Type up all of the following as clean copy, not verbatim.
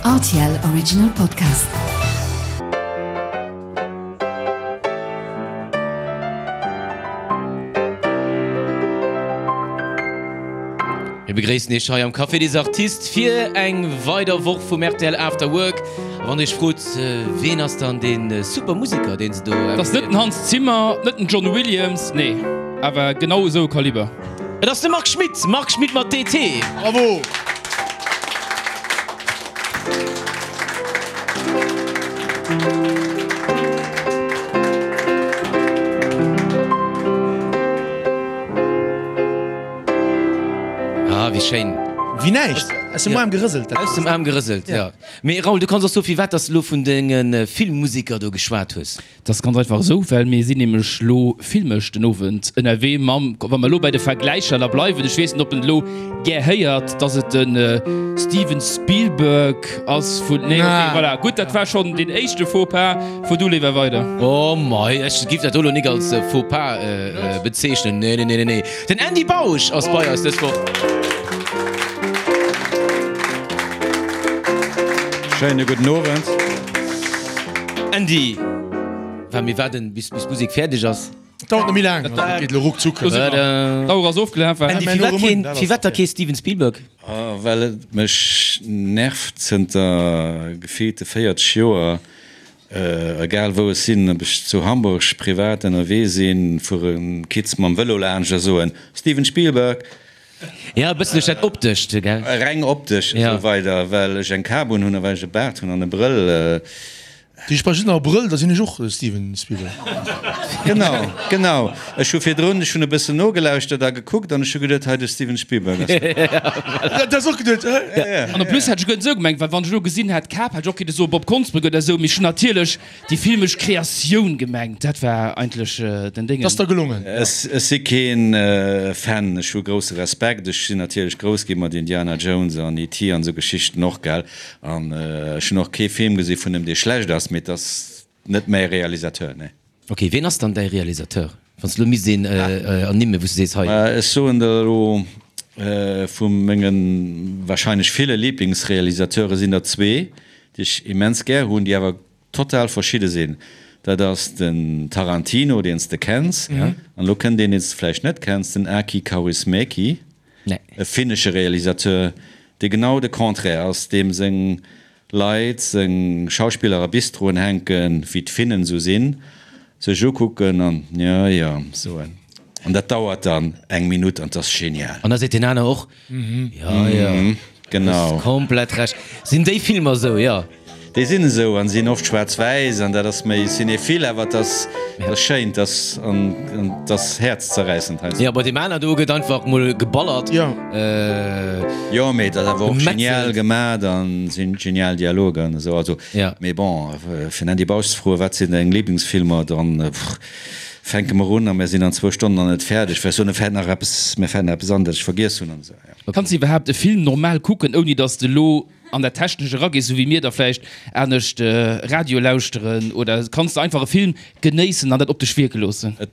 Rtl Original Podcast. Mir begréissen Iech hei am Café des Artistes fir eng weider Woch vum rtl After Work. A wann Dir Iech frot, ween ass dann dee super Museker, deen se do. Et ass net den Hans Zimmer, net den John Williams, nee, awer genau esou e Kaliber. Et ass de Marc Schmitt, Marc Schmitt mat DT. Bravo! Ah, wéi schéin. Wéi näischt. Aus dem Aarm gerëselt. Aus dem Aarm gerëselt, jo. Mee Raoul, du kanns och soe firwat dass de lo vun denge Filmmuseker do geschwat hues. Dat ass ganz einfach esou, well mir sinn nämlech lo filmesch den Owend ënnerwee mam, wa mer elo bei de Vergläicher da bleiwen, ech weess net, ob en et elo gär héiert, dass et de Steven Spielberg ass vun, nee, okay, voilà, gutt, dat war schonn deen éischte Faux-pas. Fuer du léiwer weider. Oh mei, ech giff dat do lo nik als Faux-pas bezeechnen, nee, nee, nee, nee. Den Andy Bausch ass bei eis dës Woch. Schéine gudden Owend. Andy, well mir waarden bis bis d'Musek fäerdeg ass. Dauert net méi laang, dat geet elo ruckzuck. D'Auer ass ofgelaf. Andy, firwat keen, firwat da kee Steven Spielberg? Well et mech nervt zënter gefillte 40 Joer, egal wou ech sinn, ob ech zu Hamburg privat ënnerwee sinn, fuere Kids mam Vëlo laanscht a soen, Steven Spielberg! Ja, e bëssen duerch dat Optescht, gell? Reng optesch esou weider, well ech eng Kap un hunn a well ech e Baart hunn an e Brëll. Déi ech brauch just nach e Brëll, da sinn ech och Steven Spielberg. Genau, genau. Ech hu virdrun, ech hunn e bëssen nogelauschtert a gekuckt an ech hu geduet, hei de Steven Spielberg ass dat. Dat hues och geduet, hä? Ja, ja. An en plus hätt ech guer net esou gemengt, well wann ech elo gesinn hätt Kap, hätt ech och kinne soe Bob Konsbrück oder esou, mee ech hunn natierlech Déi filmesch Kreatioun gemengt, dat war eigentlech den Déngen. T'ass der gelongen. Ech si keen Fan, ech hu grousse Respekt, ech sinn natierlech grouss gi mat Indiana Jones an ET an esou Geschichten och, gell, an ech hunn och kee Film gesi vun em dee schlecht ass, mee et ass net mäi Realisateur, nee. Ok, ween ass dann däi Realisateur, wann s de elo misst een ernimmen, wou s de sees, hei. Ech soen der elo, vu menge wahrscheinlech ville Liblingsrealisateure sinn der zwee, déi ech immens gär hunn, déi awer total verschidde sinn. Dat ass den Tarantino, deen s de kenns, an elo kënnt een, deen s de vläicht net kenns, den Aki Kaurismäki, e finnesche Realisateur, dee genau de Contraire ass, deem seng Leit, seng Schauspiller a Bistroen hänken, wéi d'Finnen esou sinn, sech ukucken an jo, jo soen. An dat dauert dann eng Minutt an 't ass genial. An da seet deen aner och, Jo, jo, Genau. Hues komplett Recht. Sinn déi Filmer esou, jo. Déi sinn esou an sinn oft schwaarz-wäiss an dat ass méi cinéphile, awer et ass, et ass schéin, et ass an et ass häerzzerräissend heiansdo. Jo, bei deem aner do gëtt einfach mol geballert. Jo. Jo, mee et ass awer och genial Gemetzelt. gemat an sinn genial Dialoger an esou. Also, Ja. mee bon, fir den Andy Bausch ze froen, wat sinn deng Liblingsfilmer, dann fänke mer un a mir sinn an zwou Stonnen nach net fäerdeg, well ech soen, mir fält nach eppes, mir fält nach eppes an, dat ech vergiess hunn an esou. Kanns de iwwerhaapt e Film normal kucken, ouni datt s de elo an dat Technescht eragees, esou wéi mir da vläicht anescht Radio lauschteren? Oder kanns de einfach e Film genéissen an dat op dech wierke loossen? Et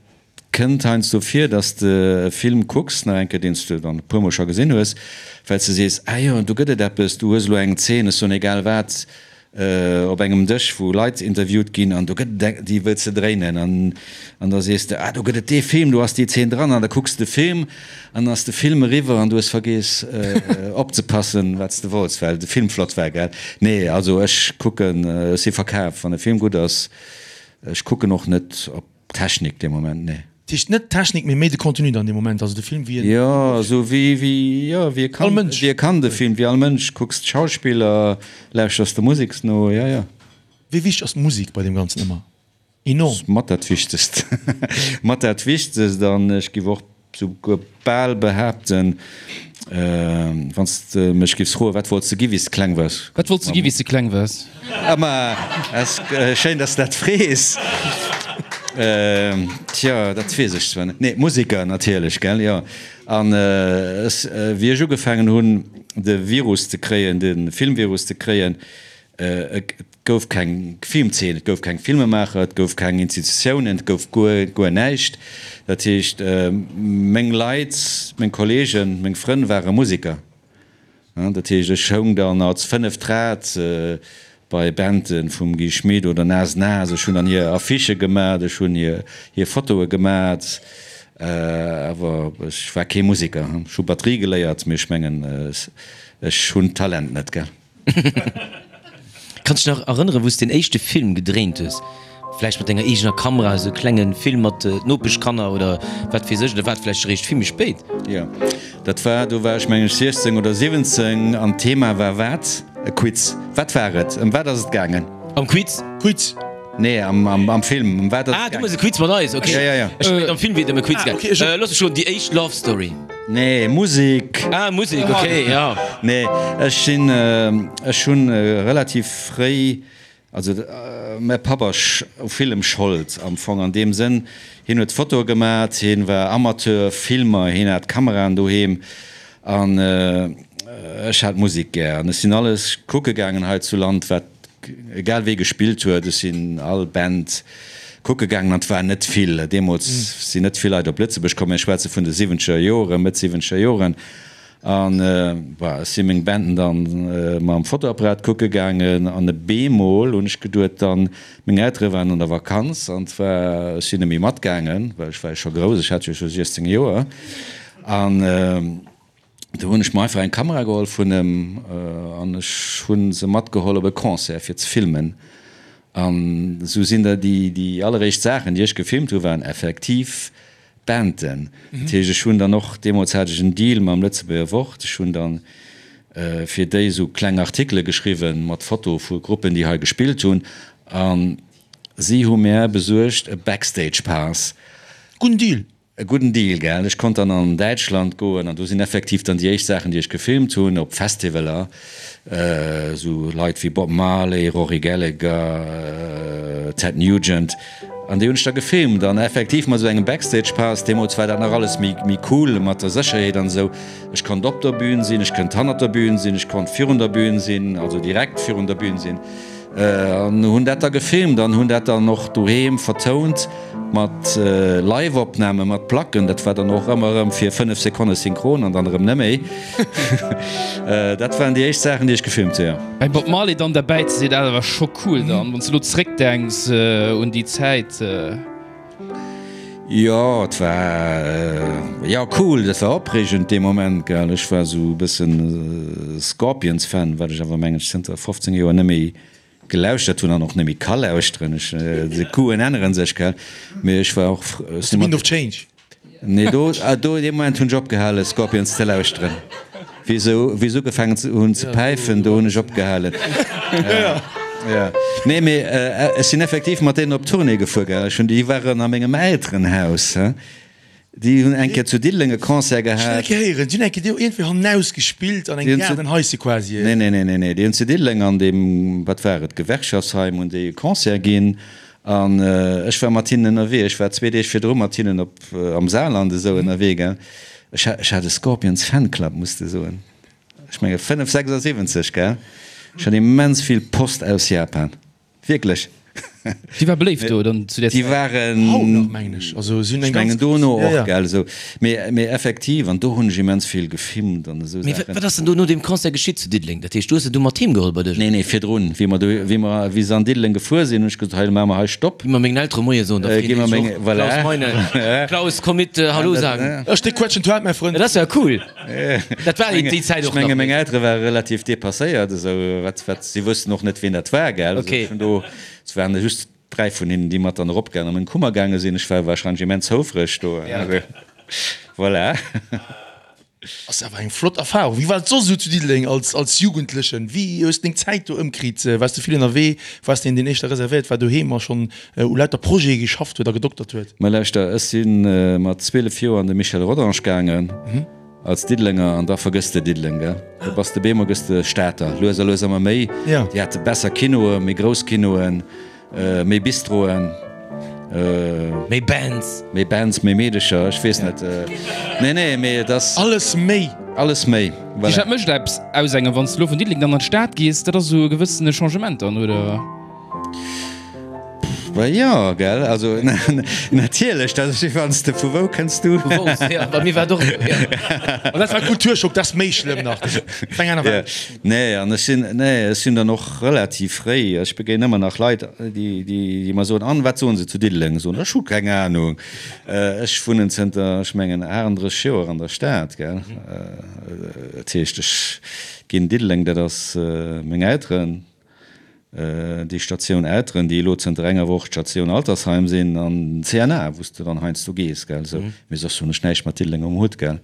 kënnt heiansdo vir, datt s de e Film kucks, nach eng Kéier, deen s de dann e puermol scho gesinn hues, well s de sees, Ah jo, do gëtt et eppes, du hues elo eng Zeen, ech soen egal wat, op engem Dësch wou Leit interviewt ginn an do gëtt et eng, déi wëlls de dréinen an an da sees de, ah do gëtt et dee Film, do ass déi Zeen dran an da kucks de Film an dann ass de Film eriwwer an du hues vergeess opzepassen wat s de wollts, well de Film flott war, gell? Nee, also ech kucken, ech si verkaf, wann e Film gutt ass, ech kucken och net op Technik dee Moment, nee. Dat heescht net d'Technik, mee méi de Contenu dann dee Moment, also de Film wéi en. Jo, esou wéi, wéi, jo, wéi e kann, All Mënsch. Wéi e kann de Film, wéi all Mënsch, kucks d'Schauspiller, lauschters der Musek no, jo, jo. Wéi wichteg ass d'Musek bei deem Ganzen ëmmer? Enorm. Mat dat Wichtegst. Mat dat Wichtegst an ech giff och souguer bal behaapten, wann s de mech giffs froen, wat wollts de gi wéi s de kleng waars? Wat wollts de gi wéi s de kleng waars? Ah ma, ass schéin, dass de dat frees. Tja, dat weess ech zwar net. Nee, Museker natierlech, gell, jo. An ech, wéi ech ugefaangen hunn, de Virus ze kréien, de Filmvirus ze kréien, Et gouf keng Filmzeen, et gouf keng Filmemaacher, et gouf keng Institutiounen, et gouf guer, guer näischt. Dat heescht, meng Leit, meng Kolleegen, meng Frënn ware Museker. Dat heescht, ech houng dann als fënneft Rad bei Banden vum Guy Schmit oder Nas Nas. Ech hunn dann hir Affichë gemat, ech hunn hir Fotoe gemat, awer ech war kee Museker. Ech hu Batterie geléiert, mee ech mengen, ech hunn d'Talent net, gell. Kanns dech nach erënneren, wou s den éischte Film gedréint hues? Vläicht mat denger eegener Kamera, esou e klenge Film mat Nopeschkanner oder wat weess ech, oder war et vläicht eréischt vill méi spéit? Jo, dat war, do war ech meng ech 16 oder 17 an d'Thema war wat? E Quiz. Wat war et? Ëm wat ass et gaangen? Am Quiz? Quiz. Nee, am, am, am Film. Ëm wat ass et Ah, du méchs e Quiz mat eis, ok. Ja, ja, ja. Ech mengen am Film wier et ëm e Quiz Ah, gaangen. ok, ech. Looss mech roden, déi éischt Love Story. Nee, Musek. Ah, Musek, ok, ja. Nee, ech sinn, ech hunn relativ fréi, also mäi Papp ass u villem Schold am Fong an deem Sënn, hien huet Fotoe gemat, hien war Amateur-Filmer, hien hat Kameraen doheem an ech hat Musek gär an ech sinn alles kucke gaangen hei zu Land, wat Egal wee gespillt huet, ech sinn all Band kucke gaangen an et war net vill. Deemools sinn net vill Leit op Lëtzebuerg komm, mir schwätze vun de siwwenzeger Joren, Mëtt siwwenzeger Joren. An bah, ech si meng Banden dann mam Fotoapparat kucke gaangen an e beemol hunn ech geduet dann, meng Eltere waren an der Vakanz an et war, ech sinn net méi matgaangen, well ech war jo scho grouss, ech hat jo scho 16 Joer an, Do hunn ech mer einfach eng Kamera geholl vun em an ech hu se matgeholl op e Concert fir ze filmen. An esou sinn der déi déi alleréischt Saachen déi ech gefilmt hu waren effektiv Banden. Dat heescht ech hunn dann och, deemools hat ech en Deal mam Lëtzebuerger Wort, ech hunn dann fir déi esou kleng Artikele geschriwwen mat Foto vu Gruppen déi hei gespillt hunn a si hu mär besuergt e Backstage Pass. Gudden Deal! E gudden Deal, gell? Ech konnt dann an Däitschland goen an do sinn effektiv dann déi éischt Saachen, déi ech gefilmt hunn, op Festivaler, esou Leit wéi Bob Marley, Rory Gallagher, Ted Nugent, an déi hunn ech da gefilmt an effektiv mat esou engem Backstage Pass. Deemools war dat nach alles méi, méi cool mat der Sécherheet an esou. Ech konnt op der Bühn sinn, ech kënnt hannert der Bühn sinn, ech konnt virun der Bühn sinn, also direkt virun der Bühn sinn. An hunn dat da gefilmt an hunn dat dann och doheem vertount mat Live-Opname mat Placken. Dat war dann och ëmmer erëm fir 5 Sekonne synchron an dann erëm neméi. Dat waren déi éischt Saachen, déi ech gefilmt hu, jo. Beim Bob Marley dann derbäi ze sinn, dat war scho cool dann, wann s de elo zréckdenks un déi Zäit. Jo, et war, jo, cool, dat war opreegend dee Moment, gell. Ech war esou e bëssen Scorpions-Fan, wat ech awer mengen ech zënter 15 Joer net méi gelauschtert hunn an och net méi ka lauschteren. Ech, de Goûten ännere sech, gell. Mee ech war och, Ass de Wind of Change? Nee, do, do, dee Moment hunn ech opgehale Scorpions ze lauschteren. Wéi se, wéi se ugefaangen hunn ze päifen, do hunn ech opgehalen. Ja. Nee, mee ech sinn effektiv mat deenen op Tournée gefuer, gell. Ech hunn, déi waren a mengem Elterenhaus, he. Déi hunn eng Kéier zu Diddeleng e Concert Ech hunn gehat. eng Kéier héieren, déi hunn eng Kéier do iergendwéi hannaus gespillt an engem Gaardenhaische quasi. Nee, nee, nee, nee, nee. Déi hunn zu Diddeleng an deem, wat war et, Gewerkschaftsheim hunn déi e Concert ginn. An ech war mat hinnen ënnerwee. Ech war zwee Deeg virdru mat hinnen op am Saarland esou ënnerwee, gell. Ech hat, ech hat e Scorpions Fanclub, muss de soen. Ech menge 5, 76, gell. Ech hat immens vill Post aus Japan. Wierklech. Déi war beléift do dann zu där Déi Zäit? waren. Haut nach, mengen ech. Also si hunn eng Ech mengen ganz dono grouss, och, ja, ja. gell, esou. Mee, mee effektiv, an do hunn ech immens vill gefilmt an esou Mee Saachen. wat ass denn do no deem Concert geschitt zu Diddeleng? Dat heescht, du hues se du mat heem geholl bei dech? Nee, nee, virdrun, wéi mer do, wéi mer, wéi se an Diddeleng gefuer sinn, hunn ech gesot, hei, maache mer hei Stopp. Gi mer mengen Eltere Moie soen, da Gi freeën mer déi sech meng, och. voilà. Klaus Meine, Klaus, komm mit, Hallo sagen. Ech de quetschen d'Welt, mäi Frënd. Dat ass ja cool. Dat war déi Zäit Ech och nach. menge meng Eltere ware relativ depasséiert, esou, wat, wat, si wussten och net, wien dat war, gell. Okay. Vun do, et waren just 3 vun hinnen, déi mat dann eropgaangen a meng Kummer gaange sinn. Ech war wahrscheinlech immens houfreg do. Voilà. Ass awer eng flott Erfahrung. Wéi war et soss esou zu Diddeleng als, als Jugendlechen? Wéi hues de deng Zäit do ëmkritt? Waars de vill ënnerwee? Waars de een, deen éischter reservéiert war doheem a schonn u lauter Projete geschafft huet a gedoktert huet? Mä lauschter, ech si mat 12 Joer an de Michel Rodange gaangen als Diddelenger an da vergëss de Diddeleng, gell? Do bass de beemol gëss de Stater, lues a lues ëmmer méi. Déi hate besser Kinoe, méi grouss Kinoen. Méi Bistroen. Méi Bands. Méi Bands, méi Meedecher, ech weess net. Nee, nee, mee et ass. Alles méi. Alles méi, voilà. Dat mécht eppes aus engem, wann s de elo vun Diddeleng dann an d'Stad gees, dat ass esou e gewëssene Changement dann, oder? Bah jo, gell, also natierlech, dat ass wéi wann s de, vu wou kënns du? Vu Wolz, jo, bei mir war et och esou, jo. An dat war Kulturschock, dat ass méi schlëmm nach, dat ass eng aner Welt. Nee, an ech sinn, nee, ech sinn dann och relativ fréi, ech begéinen ëmmer nach Leit, déi, déi mer soen, an wat soen se zu Diddeleng? Soen ech hu keng Anung. Ech wunnen zënter, ech mengen, 38 Joer an der Stad, gell, dat heescht, ech ginn Diddeleng, dat ass meng Elteren. Déi Statioun Elteren, déi elo zënter enger Woch d'Statioun Altersheim sinn, an den CNA, wou s de dann heiansdo gees, gell, esou. Mee soss hunn ech näischt mat Diddeleng um Hutt, gell.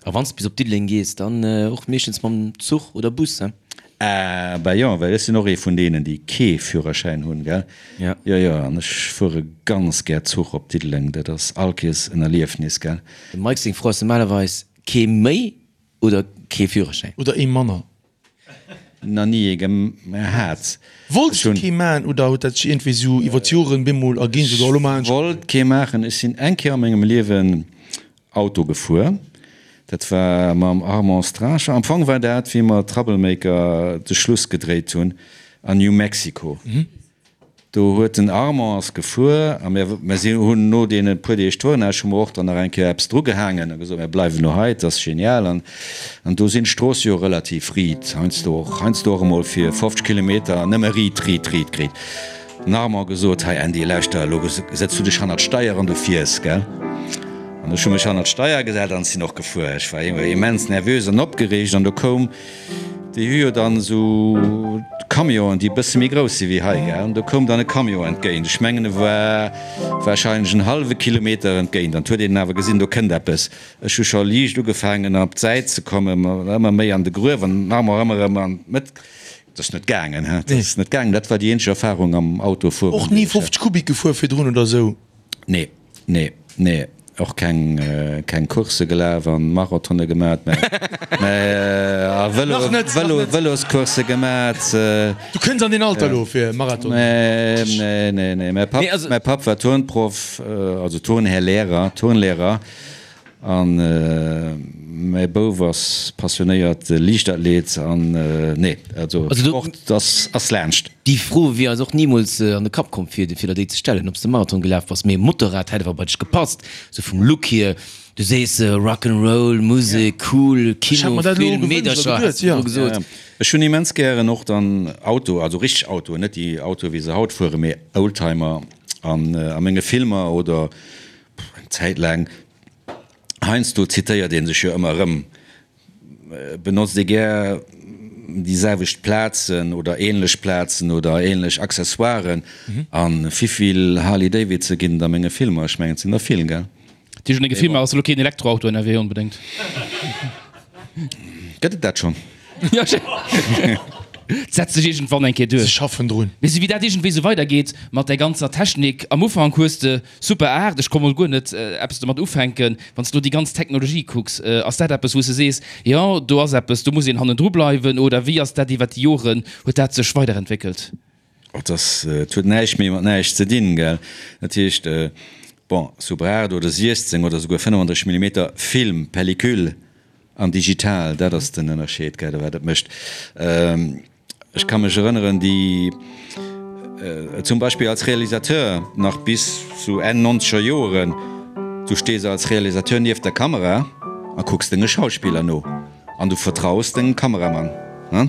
A wann s de bis op Diddeleng gees, dann och meeschtens mam Zuch oder Bus, he? Ah, bah jo, well ech sinn och ee vun deenen, déi kee Führerschäin hunn, gell. Jo. Jo, jo, an ech fuere ganz gär Zuch op Diddeleng, dat ass all Kees en Erliefnis, gell. Dem Mike seng Fro ass normalerweis, Kee méi oder kee Führerschäin? Oder ee manner. Na ni ee gehat. Wollts du kee maachen oder huet dat sech iergendwéi sou iwwer d'Joren bemol erginn, sou elo maachen ech. Wollt kee maachen. Ech sinn eng Kéier a mengem Liewen Auto gefuer. Dat war mam Armand Stracher. Am Fong war dat wéi mer Troublemaker de Schluss gedréit hunn an New Mexico. Do huet den Armand ass gefuer a mir, mir si hunn no deene puer Deeg Tournage hu mer och dann nach eng Kéier eppes drugehaangen a gesot, mir bleiwen elo hei, et ass genial. An, an do sinn d'Stroosse jo relativ riit, heiansdo och, heiansdo och emol fir 50 Kilometer nëmme riit, riit, riit, riit. Den Armand gesot, hei Andy, lauschter, elo setz du dech hannert d'Steier an du fiers, gell? An ech hu mech hannert d'Steier gesat an sinn och gefuer. Ech war immens nervös an opgereegt an do koum, Déi hu jo dann esou Camionen, déi e bësse méi grouss si wéi hei, gell? An do koum dann e Camion entgéint. Ech mengen, e war warscheinlech en hallwe Kilometer entgéint. An 't huet een awer gesinn, do kënnt eppes. Ech hu scho liicht ugefaangen, op d'Säit ze kommen, ëmmer méi an de Gruef an den Armor ëmmer erëm an d'Mëtt. Dat ass net gaangen, he? Dat ass net gaangen. Dat war déi eenzeg Erfarung am Autofueren, Och ni 50 Kubik gefuer virdrun oder esou? Nee. Nee, nee, och keng, keng Coursse gelaf an Marathone gemat, mä, mä a Vëlo, Nach net, nach Vëlo, net. Vëloscoursse gemat. Du kënns an deen Alter elo fir Marathon. Nee, nee, nee, nee. Mäi Papp, Nee, also. mäi Papp war Turnproff, also Turnhär Lehrer, Turnlehrer. An mäi Bouf ass passionéiert Liichtathlet an nee, also Sport ass ass laanscht. Déi Fro wier eis och nimools an de Kapp komm fir der déi ze stellen, ob s de Marathon gelaf bass. Mee Motorrad hätt awer bei dech gepasst, sou vum Look hier. Du sees Rock 'n' Roll, Musek, cool, Kino, Film, Meedercher, häss de elo gesot. Ech hunn immens gären och dann Auto, also richteg Autoen, net déi Autoe wéi se haut fueren, mee Oldtimer an a menge Filmer oder eng Zäit laang. Heiansdo zitéiert ee sech jo ëmmer erëm, benotzt ee gär déi selwecht Plazen oder ähnlech Plazen oder ähnlech Accessoiren. A wivill Harley Davidson ginn et a menge Filmer? Ech mengen, et sinn der vill, gell? Déi hunn e Gefill, mä ass elo keen Elektroauto ënnerwee onbedéngt. Gëtt et dat schonn? Jo, et setzt sech iergendwann eng Kéier duerch. Se schaffen drun. Mee sou wéi dat iergendwéi sou weidergeet mat där ganzer Technik, am Ufank hues de Super 8, ech konnt mol guer net eppes domat ufänken. Wann s de lo déi ganz Technologie kucks, ass dat eppes wou s de sees, jo do ass eppes, do muss een hannendru bleiwen oder wéi ass dat iwwer déi Joren, huet dat sech weiderentwéckelt? Oh, et ass, et huet näischt méi mat näischt ze dinn, gell. Dat heescht, bon, Super 8 oder 16 oder souguer 35 Millimeter Film, Pellicule an digital, dat ass den Ënnerscheed, gell, wat et mécht. Ech ka mech erënneren, déi zum Beispill als Realisateur nach bis zu Enn nonzeger Joeren, du stees als Realisateur nieft der Kamera a kucks denge Schauspiller no an du vertraus dengem Kameramann.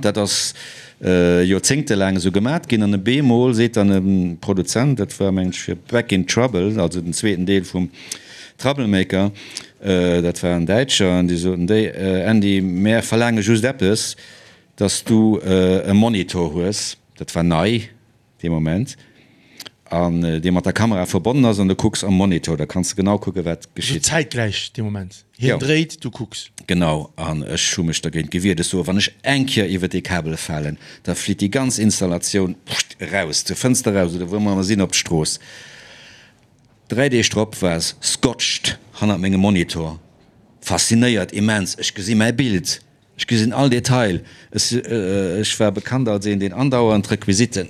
Dat ass joerzéngtelaang esou gemat ginn an e bemol seet dann e Produzent, dat war mengen ech fir Back in Trouble, also den zweeten Deel vum Troublemaker, dat war en Däitscher, an déi soten, déi Andy, mär verlaange just eppes, Dass du e Monitor hues, dat war nei dee Moment, an dee mat der Kamera verbonnen ass an du kucks am Monitor, da kanns de genau kucke wat geschitt. Also zäitgläich dee Moment, hien dréit, du kucks. Genau, an ech hu mech dergéint gewiert. Ech soe, wann ech eng Kéier iwwer dee Kabel falen, da flitt déi ganz Installatioun eraus, zur Fënster eraus oder wou mer ëmmer sinn, op d'Strooss. 3 Deeg drop war se scotched hannert mengem Monitor, faszinéiert, immens, ech gesi mäi Bild. Ech gesinn all Detail. Ech war bekannt als een, deen andauernd Requisiten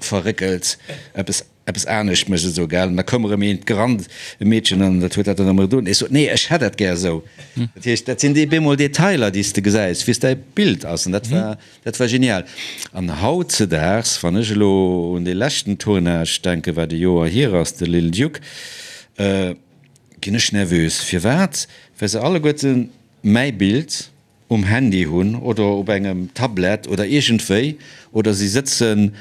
verréckelt, eppes. Eppes anescht méchs esou, gell? An da koum erëm eent gerannt, e Meedchen, an dat huet dat dann erëm gedoen. Ech sot, Nee, ech hätt dat gär esou. Dat heescht, dat sinn déi bemol Detailer, déi s de gesäis, wéi s däi Bild ass. An dat war, dat war genial. An hautzedaags, wann ech elo un dee leschten Tournage denken, wat e Joer hier ass, de Little Duke, ginn ech nervös. Firwat? Well se alleguerte mäi Bild um Handy hunn oder op engem Tablett oder iergendwéi, oder si sëtzen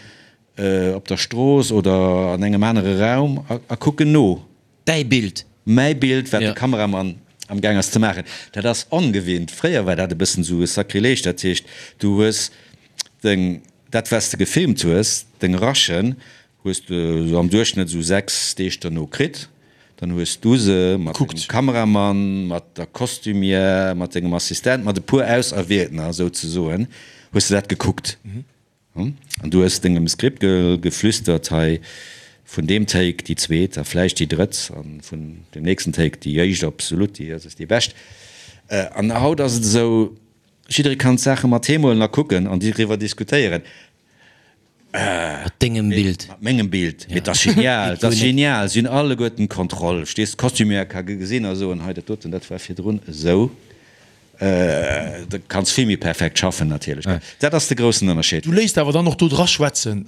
Op der Strooss oder an engem anere Raum a kucken no. Däi Bild. Mäi Bild, wat de Kameramann am Gaang ass ze maachen. Dat ass ongewinnt. Fréier war dat e bëssen esou e Sakrileg. Dat heescht, du hues deng, dat wat s de gefilmt hues, deng Rushen, hues de esou am Duerchschnëtt esou 6 Deeg derno kritt. Dann hues du se mat dengem Kameramann, mat der Costumière, mat dengem Assistent, mat e puer Auserwieltener souzesoen, hues de dat gekuckt. An du hues dengem Skript geflüstert, hei vun deem Take déi zweet a vläicht déi drëtt a vun deem nächsten Take déi éischt, absolut, déi ass déi bescht. An haut ass et esou, jidderee kann d'Saache mat heem huelen a kucken an driwwer diskutéieren. Mat dengem Bild. Mat mengem Bild. Mee et ass genial, et ass genial. Si hunn alleguerten d'Kontroll, verstees? D'Costumière ka gesinn a soen, hei dat doten, dat war virdrun esou. Du kanns vill méi perfekt schaffen natierlech. Dat ass de groussen Ënnerscheed. Du léisst awer dann och do dra schwätzen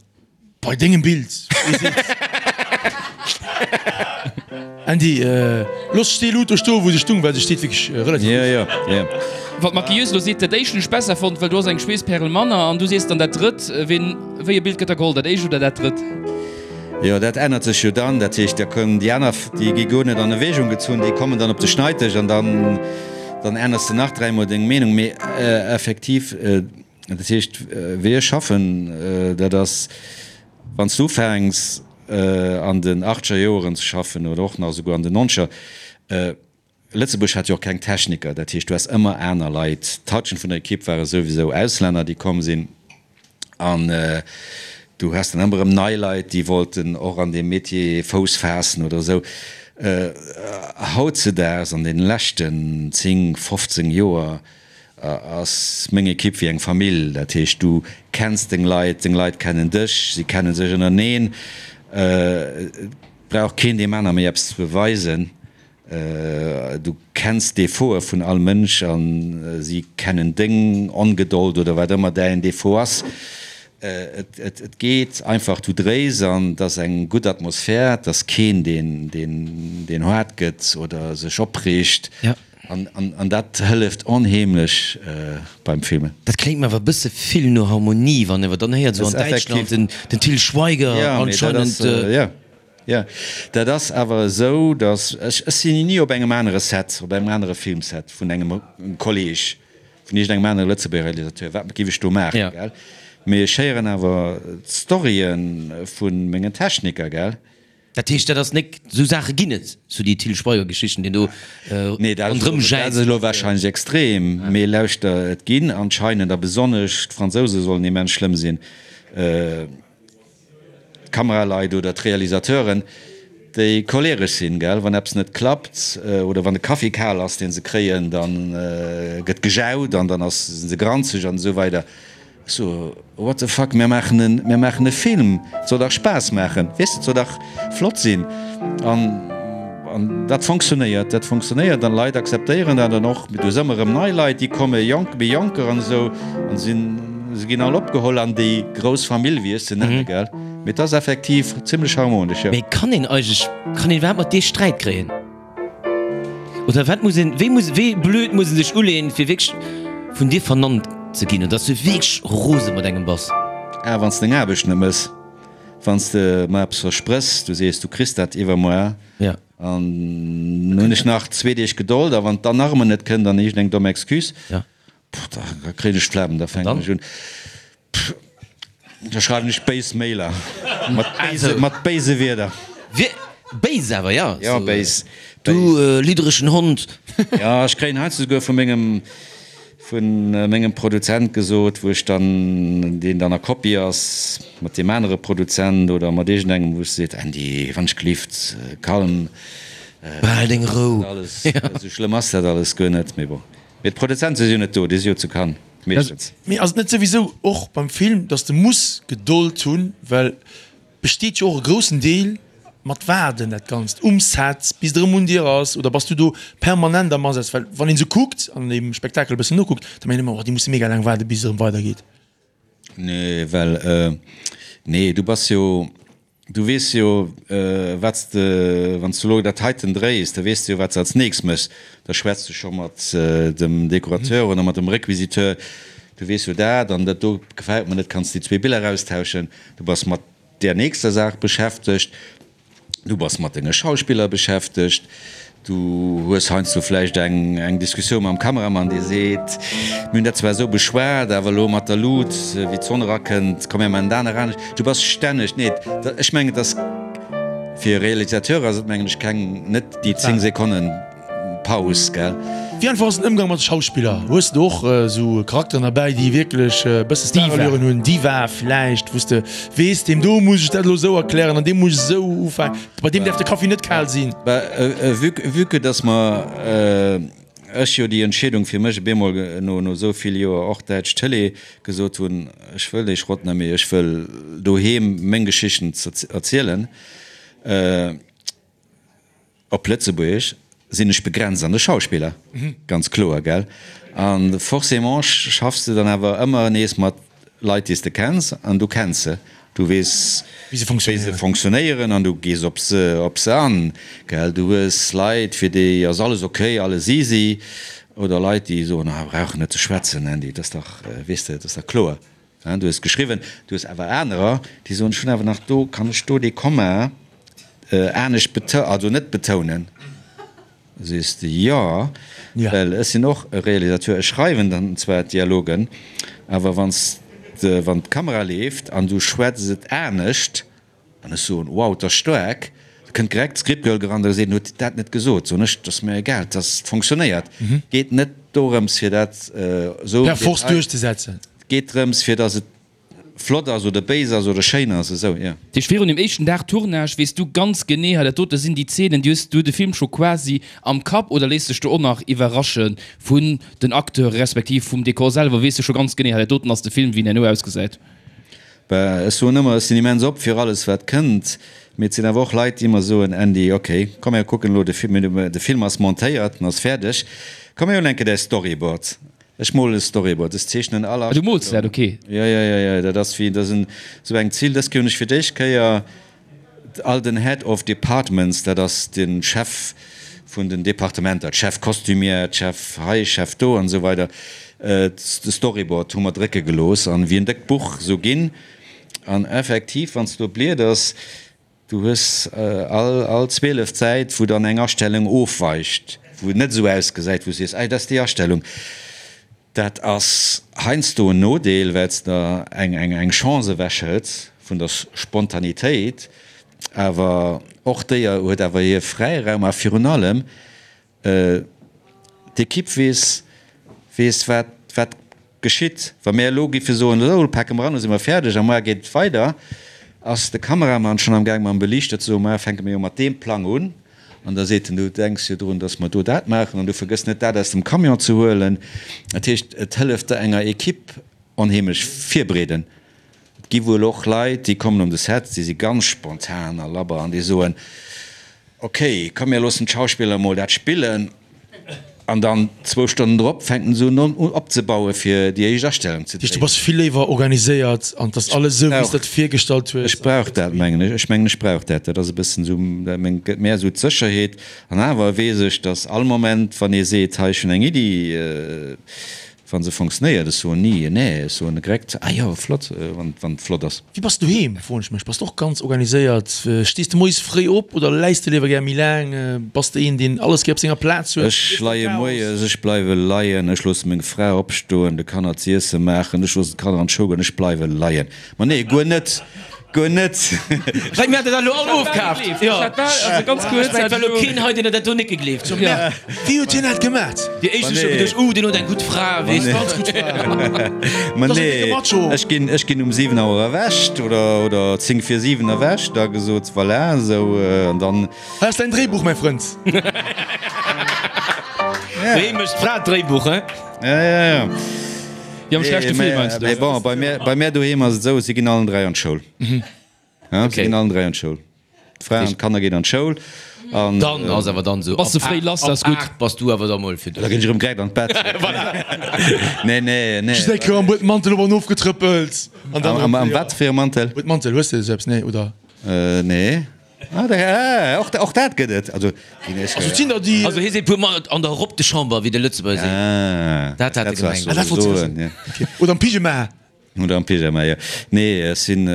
bei dengem Bild. Andy, looss déi Lut do stoen, wou se stung, well se steet wierklech relativ gutt. Jo, jo. Wat d'Maquilleuse elo seet, dat éischt hunn ech besser fonnt, well do ass eng Schweesspärel manner. An du sees dann dat drëtt. Ween, wéi e Bild gëtt da geholl, dat éischt oder dat drëtt? Jo, dat ännert sech jo dann. Dat heescht, da kommen déi aner, déi gi guer net an Erwägung gezunn, déi kommen dann op de Schneiddesch an dann, dann ännerst de nach dräimol deng Meenung. Mee effektiv, dat heescht, wéi ech schaffen, dat ass, wann s du ufänks an den achtzeger Joeren ze schaffen oder och nach esouguer an den nonzeger, Lëtzebuerg hat jo och keng Techniker, dat heescht, du has ëmmer aner Leit. D'Halschent vun der Ekipp ware souwisou Auslänner, déi komm sinn. An du has dann ëmmer erëm nei Leit, déi wollten och an deem Metier Fouss faassen oder esou. Hautzedaags, an deene leschten 10, 15 Joer, ass meng Ekipp wéi eng Famill. Dat heescht, du kenns deng Leit, deng Leit kennen dech, si kenne sech ënnereneen. Et brauch keen deem aner méi eppes ze beweisen. Du kenns d'Defautë vun all Mënsch a si kennen deng Ongedold oder wat ëmmer däin Defaut ass. Et geet einfach, du dréis an et ass eng gutt Atmosphär, et ass keen, deen haart gëtt oder sech opreegt. An dat hëlleft onheemlech beim Filmen. Dat kléngt mer awer e bësse vill no Harmonie, wann een awer dann héiert, esou an Däitschland den Til Schweiger anscheinend. Jo, dat ass awer esou, datt ech, ech sinn ni op engem anere Set, op engem anere Filmset vun engem Kolleg, vun iergendengem anere Lëtzebuerger Realisateur, wat géif ech do maachen, gell? Mee ech héieren awer d'Storye vu mengen Techniker, gell? Dat heescht, dat ass nek, esou Saache ginn et, sou déi Til Schweiger-Geschichten, deen do Nee, dat ass elo, dat ass elo warscheinlech extrem, mee lauschter, et ginn anscheinend, a besonnesch d'Fransouse sollen immens schlëmm sinn, d'Kameraleit oder d'Realisateuren, déi choleresch sinn, gell, wann eppes net klappt oder wann de Kaffi kal ass, deen se kréien, da gëtt gejaut an dann ass, sinn se granzeg an esou weider. Ech so, what the fuck, mir maachen en, mir maachen e Film, et soll dach Spaass maachen, weess de, et soll dach flott sinn. An, an dat fonctionnéiert, dat fonctionnéiert an d'Leit akzeptéieren dat an och, du hues ëmmer erëm nei Leit, déi kommen, jonk, méi jonker an esou an sinn, Se ginn all opgeholl an déi grouss Famill, wéi ech se nennen, gell? Mee et ass effektiv zimlech harmonesch, jo. Mee kann een eigentlech, kann een iwwerhaapt mat dir Sträit kréien? Oder wat muss een, wéi muss, wéi blöd muss een sech uleeën, fir wierklech vun dir vernannt ze ginn, oder dass du wierklech rose mat engem bass? Ah, wann s de deng Aarbecht net mëss, wann s de mer eppes versprëchs, du sees, du kriss dat iwwermuer, an hunn ech nach zwee Deeg Gedold, a wann et dann nach ëmmer net kënnt, dann iergendeng domm Excuse. Pff, da kréien ech d'Flemm, da fänken ech un, pff, da schreiwen ech béis Mailer mat béise, mat béise Wierder. Wie, béis awer, ja? Ja, béis. Du lidderechen Hond. Ja, ech kréien heiansdo souguer vu mengem, vu mengem Produzent gesot, wou ech dann, deen dann a Kopie ass mat deem anere Produzent oder mat iergendengem, wou ech seet, Andy, wann ech gelift, kalm. Behal deng Rou. Esou schlëmm ass dat alles guer net, mee bon. Mee d'Produzente si jo net do, déi si jo zu Cannes, meeschtens. Mee ass et net souwisou och beim Film, dass de muss Gedold hunn, well. besteet jo och e groussen Deel mat Waarden, dat Ganzt um Set, bis et erëm un dir ass, oder bass du do permanent am Asaz? Well wann een esou kuckt an dem Spektakel e bëssen nokuckt, da mengt een ëmmer, oh déi musse mega laang waarden, bis et erëm weidergeet. Nee, well, nee, du bass jo, du weess jo, wat s de, wann s du elo dat heiten dréis, da weess de jo, wat s de als nächst méchs. Da schwätz de scho mat dem Dekorateur oder mat dem Requisiteur, du weess jo dat an dat do gefält mer net, kanns déi zwee Biller austauschen. Du bass mat där nächster Saach beschäftegt, du bass mat denge Schauspiller beschäftegt, du hues heiansdo vläicht eng eng Diskussioun mam Kameramann, dee seet, mir hunn dat zwar esou beschwat, awer elo mat der Lut, wéi d'Sonn erakënnt, komm mir maachen dat nach anescht. Du bass stänneg, nee, ech mengen, et ass fir e Realisateur ass et mengen ech keng, net déi 10 Sekonnen. Paus, gell? Wéi einfach ass den Ëmgang mat de Schauspiller? Hues de och esou Charakteren derbäi, déi wierklech e bësse Starallüren hunn, Diva vläicht, wou s de weess, deem do muss ech dat elo esou erklären an deem muss ech esou ufänken, bei deem däerf de Kaffi net kal sinn? Bah, vue, vue que dass mer, ech jo déi Entscheedung fir mech op eemol no, no esou vill Joer och däitsch Tëlee gesot hunn, ech wëll dee Schrott net méi, ech wëll doheem meng Geschichten erzielen, Op Lëtzebuergesch sinn ech begrenzt an de Schauspiller, ganz kloer, gell? A forcément schaffs de dann awer ëmmer nees mat Leit, déi s de kenns, an du kenns se, du weess, wéi se fonctionnéieren an du gees op se, op se an, gell? Du hues Leit, fir déi ass alles ok, alles easy, oder Leit, déi soen, ah, brauch net ze schwätzen, Andy, dat ass dach, weess de, dat ass dach kloer. Du hues geschriwwen, du hues awer anerer, déi soen, ech hunn awer nach do, kann ech do dee Komma anescht betou, also net betounen? Da sees de, jo, well ech sinn och e Realisateur, ech schreiwen dann zwar d'Dialogen, awer wann s de, wann d'Kamera leeft an du schwätz et anescht, An ech soen, Wow, 't ass staark. Da kënnt direkt d'Scriptgirl gerannt a seet, En huet dat net gesot. Soen ech, 't ass mir egal, 't ass, 't fonctionnéiert. Et geet net dorëms, fir dat esou per force duerchzesetzen. Et geet drëms, fir datt et flott ass oder béis ass oder schéin ass, esou, jo. Dat heescht, virun dem éischten Dag Tournage weess du ganz genee, hei dat dote sinn déi Zeenen, déi hues du de Film scho quasi am Kapp oder léiss dech do och nach iwwerrasche vun den Acteure respektiv vum Dekor selwer? Weess du scho ganz genee, hei dat doten ass de Film, wéi en herno ausgesäit? Bah, ech soen ëmmer, ech sinn immens op fir alles wat kënnt, mee et sinn awer och Leit, déi ëmmer soen, Andy, ok, komm mir kucken elo de Film, de Film ass montéiert, en ass fäerdeg, komm mir hunn eng Kéier däi Storyboard. Ech molen e Storyboard, ech zeechnen all Ah, du mools dat, ok. Jo, jo, jo, jo, dat ass wéi, dat ass en, esou eng Zill, dës Kéier hunn ech fir d'éischt Kéier All den Head of Departments, dat ass de Chef vun den Departementer, d'Chef Costumière, d'Chef hei, Chef do an esou weider, de Storyboard hu mer drécke gelooss an wéi en déckt Buch esou ginn. An effektiv, wann s de do blieders, du hues all all 12 Säit, wou dann eng Astellung ofweicht, wou et net esou ausgesäit, wou s sees, Ei, dat ass déi Astellung. Dat ass heiansdo en Nodeel, well s der eng Chance ewechhëls vun der Spontanitéit. Awer och déi huet awer hir Fräiraum a virun allem d'Ekipp weess, weess wat wat geschitt. Wa mir elo géife soen, esou elo pake mer an, elo si mer fäerdeg a muar geet et weider, ass de Kameramann schonn am Gaang mam Beliichter ze soen, muar fänke mir jo mat deem Plang un. An da seet en, du denks jo drun, datt mer do dat maachen an du vergëss net, dat aus dem Camion ze huelen. Dat heescht, et hëlleft der enger Ekipp onheemlech virbereeden. Et gi wuel och Leit, déi kommen un de Set, déi si ganz spontan a labber an déi soen, ok, komm mir loossen d'Schauspiller emol dat spillen. An dann zwou Stonnen drop fänken se un opzebauen, fir déi éischt Astellung ze dréinen. Du bass vill léiwer organiséiert an 't ass alles esou, wéi s de et virgestallt hues. Ech brauch dat, mengen ech. Ech mengen, ech brauch dat. Dat ass e bëssen esou, dat gëtt mär esou d'Sécherheet. An awer weess ech, dass all Moment, wann ee seet, hei, ech hunn eng Iddi, Wann se fonctionnéiert, ech soen ni nee, ech soen direkt, ah jo, flott, wann et flott ass. Wéi bass du doheem, froen ech mech. Bass de och ganz organiséiert? Stees de moies fréi op oder läis de léiwer gär méi laang? Bass de een, deen alles gär op senger Plaz huet? Ech leie moies, ech bleiwe leien, ech loosse meng Fra opstoen, de Kanner z'iesse maachen, ech loossen d'Kanner an d'Schoul goen, ech bleiwe leien. Ma nee, guer net, guer net. Wei mir hat dat elo all ofkaaft. Jo, also ganz kuerz, et war elo keen hei, deen dat do net gegleeft huet. Wéi huet hien dat gemat? Déi éischt hu scho geduecht, uh, deen huet eng gutt Fra, weess de. Ganz gutt Fra. Ma nee, ech ginn, ech ginn um 7 Auer erwächt oder, oder 10 vir 7 erwächt, da gesot, voilà, esou, an dann. Hei ass däin Dréibuch, mäi Frënd. Wéi mécht d'Fra d'Dréibuch, hein? Ja, ja, ja. Déi am schlechte Film meinst du? Mee bon, bei mär, bei mär doheem ass et esou, si ginn allen 3 an d'Schoul. Ja, si ginn allen 3 an d'Schoul. D'Fra an d'Kanner ginn an d'Schoul an. Dann ass awer dann esou, Bass de fréi lass, dat ass gutt. Ab 8 bass du awer da mol fir Da ginn ech erëm direkt an d'Bett. Nee, nee, nee. Just eng Kéier am Buedmantel op an ofgetrëppelt an dann Am, am wat fir e Mantel? Buedmantel, hues de esou eppes? Nee, oder? Nee. Ah, da, ah, och, och dat gëtt et. Also, ginn ech. Also, et sinn der déi. Also hie seet puer Mol an der Robe de chambre, wéi de Lëtzebuerger seet. Ah, Dat hat e dat gemengt. Ah, dat wollt soen, ja. Okay. Oder am Pyjama. Oder am Pyjama, jo. Nee, ech sinn,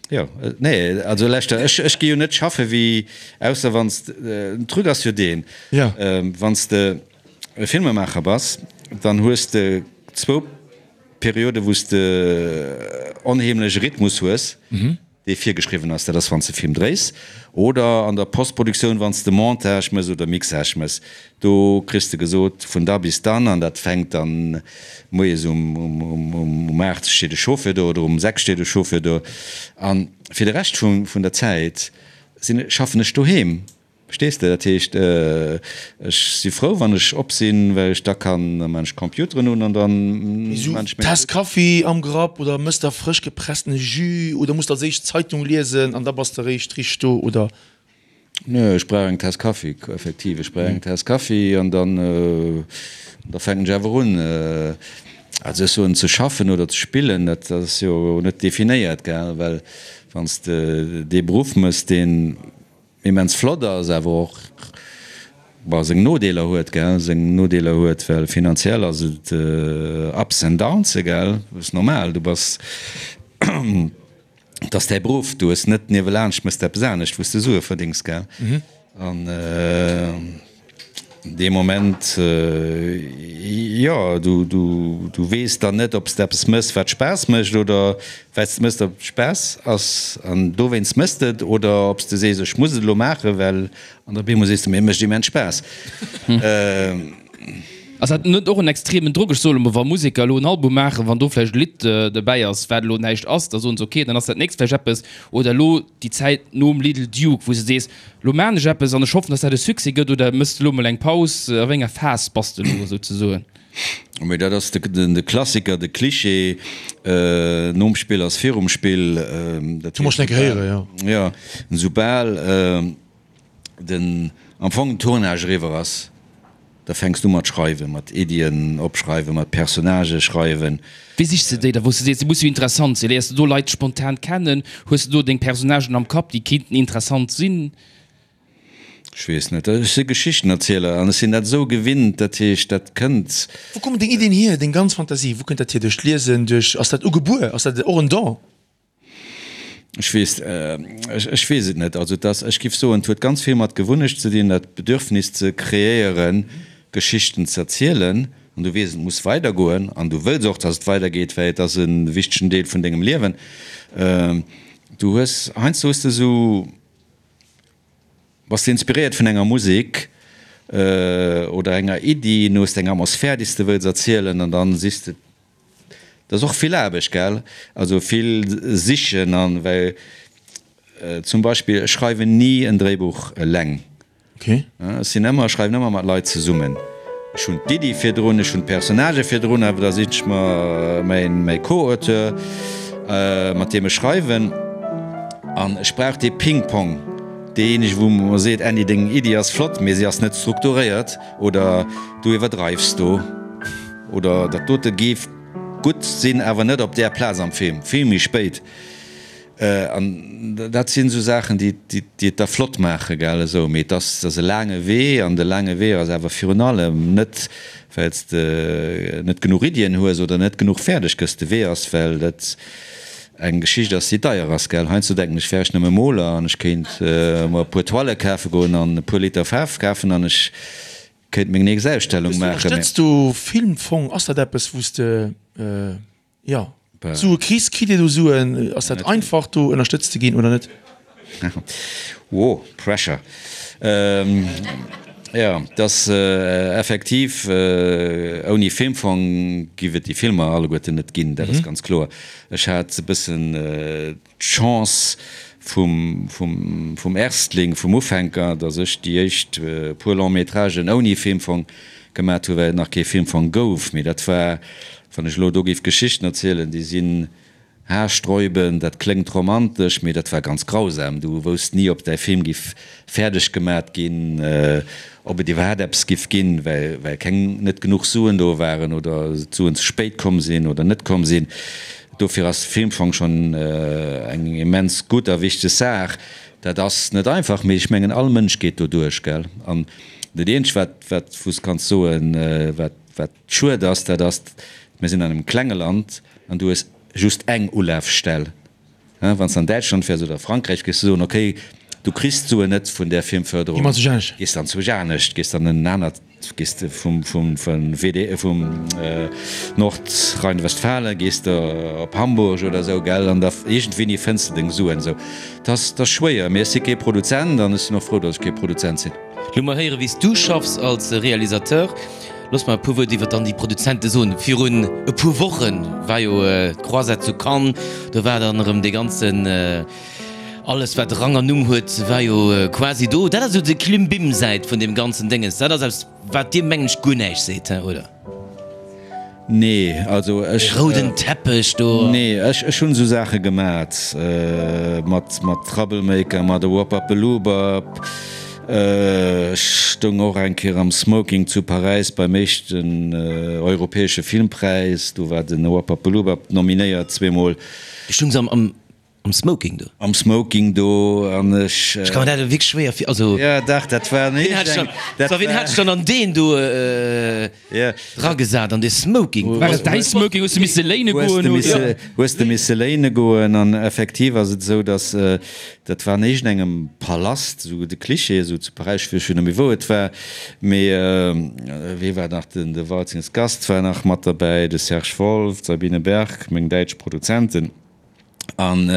jo, nee, also leschter, ech, ech gi jo net schaffe wéi, ausser wann s de, den Truc ass jo deen, Ja. wann s de e Filmemaacher bass, dann hues de zwou Perioden, wou s de onheemlech e Rhythmus hues. Dee virgeschriwwen ass, dat ass wann s de Film dréis oder an der Postproduktioun wann s de Montage mëss oder Mixage mëss. Do kriss de gesot vun da bis dann an dat fänkt dann moies um um 8 steet e Chauffeur do oder um 6 steet e Chauffeur do an fir de Rescht vun der Zäit sinn schaffen ech doheem. Verstees de? Dat heescht, ech si frou, wann ech op sinn, well ech da kann, da maan ech d'Computeren un an da maan ech meng. Taass Kaffi am Grapp oder mëss der frësch gepressene Jus oder muss der als éischt d'Zeitung liesen an da bass de eréischt richteg do, oder? Nö, ech brauch eng Taass Kaffi, effektiv, ech brauch eng Taass Kaffi an dann, da fänken ech awer un. Also ech soen, ze schaffen oder ze spillen, dat ass jo net definéiert, gell, well wann s de dee Beruff mëss, deen Immens flott ass, awer och bon seng Nodeeler huet, gell, seng Nodeeler huet, well finanziell ass et ups and downs, gell, ass normal, du bass, et ass däi Beruff, du hues net niewelaanscht mëss de eppes anescht wou s de Sue verdéngs, gell, an. Dee Moment, jo, du weess dann net, ob s de eppes mëss, wat Spaass mécht, oder wat s de mëss, dat Spaass ass an dowéinst mëss de et, oder ob s de sees, ech muss et elo maachen, well, an op eemol sees de, mee et mécht immens Spaass. Ass dat net och en extremen Drock? Ech soe lo mol, wa Museker elo en Album maachen, wann do vläicht e Lidd dobäi ass, wat elo näischt ass, da soen se, ok, dann ass dat nächst vläicht eppes. Oder elo déi Zäit nom Little Duke, wou s de sees, Lo maan ech eppes an ech hoffen dass dat e Succès gëtt oder mëss de lo mol eng Paus? A wéi enger Phas bass de lo souzesoen? Mee dat ass de Klassiker, de Cliché, nom Spill ass virum Spill. Dat hu mer schon eng Kéier héieren, jo. Jo, soubal den am Fong den Tournage eriwwer ass, Da fänks du mat schreiwen, mat Iddien opschreiwen, mat Personnagë schreiwen. Wéi sichs de déi da, wou s de sees, déi musse jo interessant sinn? Léiers de do Leit spontan kennen? Hues de do deng Personnagen am Kapp, déi kéinten interessant sinn? Ech weess net. Ech si Geschichtenerzieler an ech sinn dat esou gewinnt. Dat heescht, dat kënnt. Wou kommen deng Iddien hier, deng ganz Fantasie, wou kënnt dat hier? Duerch d'Liesen, duerch, ass dat ugebuer, ass dat och en Don? Ech weess, ech weess et net. Also et ass, ech giff soen, et huet ganz vill mat Gewunnecht ze dinn, dat Bedürfnis ze kreéieren, Geschichten ze erzielen. An du weess, et muss weidergoen an du wëlls och, dass et weidergeet, well et ass e wichtegen Deel vun dengem Liewen. Du hues, heiansdo hues de esou, bass de inspiréiert vun enger Musek oder enger Iddi, du hues eng Atmosphär, déi s de wëlls erzielen an dann sichs de Dat ass och vill Aarbecht, gell? Also vill sichen an, well zum Beispill ech schreiwen ni en Dréibuch eleng. Okay. Ech sinn ëmmer, ech schreiwen ëmmer mat Leit zesummen. Ech hunn d'Iddi virdrun, ech hunn d'Personnagë virdrun, awer da siche ech mer mäin, mäi Co-Auteur, mat deem ech schreiwen. An ech brauch dee Ping-Pong, deejéinege wou mer seet, Andy, deng Iddi ass flott, mee si ass net strukturéiert oder du iwwerdreifs do. Oder dat dote géif gutt sinn, awer net op där Plaz am Film, vill méi spéit. An dat sinn esou Saachen, déi et da flott maachen, gell, esou. Mee et ass, et ass e laange Wee, an de laange Wee ass awer virun allem net, well s de net genuch Iddien hues oder net genuch fäerdeg gëss. De Wee ass, well dat eng Geschicht ass, déi deier ass, gell. Heiansdo denken ech, wär ech nëmme Moler an ech kéint mer e puer Toile kafe goen an e puer Liter Faarf kafen an ech Kéint meng nächst Ausstellung maachen. Ënnerstëtz du Filmfong? Ass dat eppes wou s de jo Sue kriss? Kritt Dir do Suen? Ass dat einfach do ënnerstëtzt ze ginn oder net? Wow, pressure. Jo, et ass effektiv, ouni Filmfong giff et déi Filmer alleguerten net ginn, dat ass ganz kloer. Ech hat e bëssen d'Chance vum, vum, vum Erstling, vum Ufänker, datt ech déi éischt puer Long-métragen ouni Filmfong gemat hu, well et nach kee Filmfong gouf. Mee dat war, wann ech elo do géif Geschichten erzielen, déi sinn. Haarsträubend, dat kléngt romantesch, mee dat war ganz grausam. Du wousst ni, ob däi Film giff fäerdeg gemat ginn, ob et iwwerhaapt eppes giff ginn, well well keng, net genuch Suen do waren oder d'Suen ze spéit komm sinn oder net komm sinn. Dofir ass de Filmfong schonn eng immens gutt a wichteg Saach. Dat ass net einfach, mee ech mengen all Mënsch geet do duerch, gell. An dat eenzegt wat wat wou s kanns soen, wat wat schued ass, dat ass, mir sinn an engem klenge Land an du hues just eng Ulafstell. Wann s de an Däitschland wäers oder Frankräich, géifs de soen, okay, du kriss d'Suen net vun där Filmförderung, gees dann zwousch anescht, gees dann en anert, gees de vum WD, vum Nordrhein-Westfalen gees de op Hamburg oder esou, gell, an da iergendwéini fënns de deng Suen. Esou, 't ass, 't ass schwéier, mee ech si kee Produzent an ech sinn och frou, datt ech kee Produzent sinn. Lo mol héiere wéi s du schaffs als Realisateur. Looss mer e puer Wuert iwwer dann déi Produzente soen. Virun e puer Woche war jo d'Croisette zu Cannes, do war dann erëm dee ganzen, alles wat Rang an Numm huet, war jo quasi do. Dat ass esou déi Klimbim-Säit vun deem ganzen Dénges. Dat ass eppes wat dir mengen ech guer näischt seet, he, oder? Nee, also ech. Dee rouden Teppech do. Nee, ech, ech hunn esou Saache gemat, mat, mat Troublemaker, mat Woppapeloobap. Ech stoung och eng Kéier am Smoking zu Paräis beim éischten europäesche Filmpräis, do war den Woppapeloobap nominéiert zweemol. Du stoungs am, am. Am Smoking do? Am Smoking do an ech. Ech ka mer dat elo wierklech schwéier vir, also. Jo, dach, dat war en. Wien hat sech dann, so, wien hat sech dann an deen do eragesat, an dee Smoking? War et däi Smoking? Hues de misse léine goen, oder? Hues de misse léine goen an effektiv ass et esou, datt, dat war an iergendengem Palast, esou de Klischee, esou zu Paräis, ech weess scho net méi wou et war, mee wee war nach, den de Waltzings Gast war nach mat derbäi, de Serge Wolf, d'Sabine Berg, meng däitsch Produzenten. An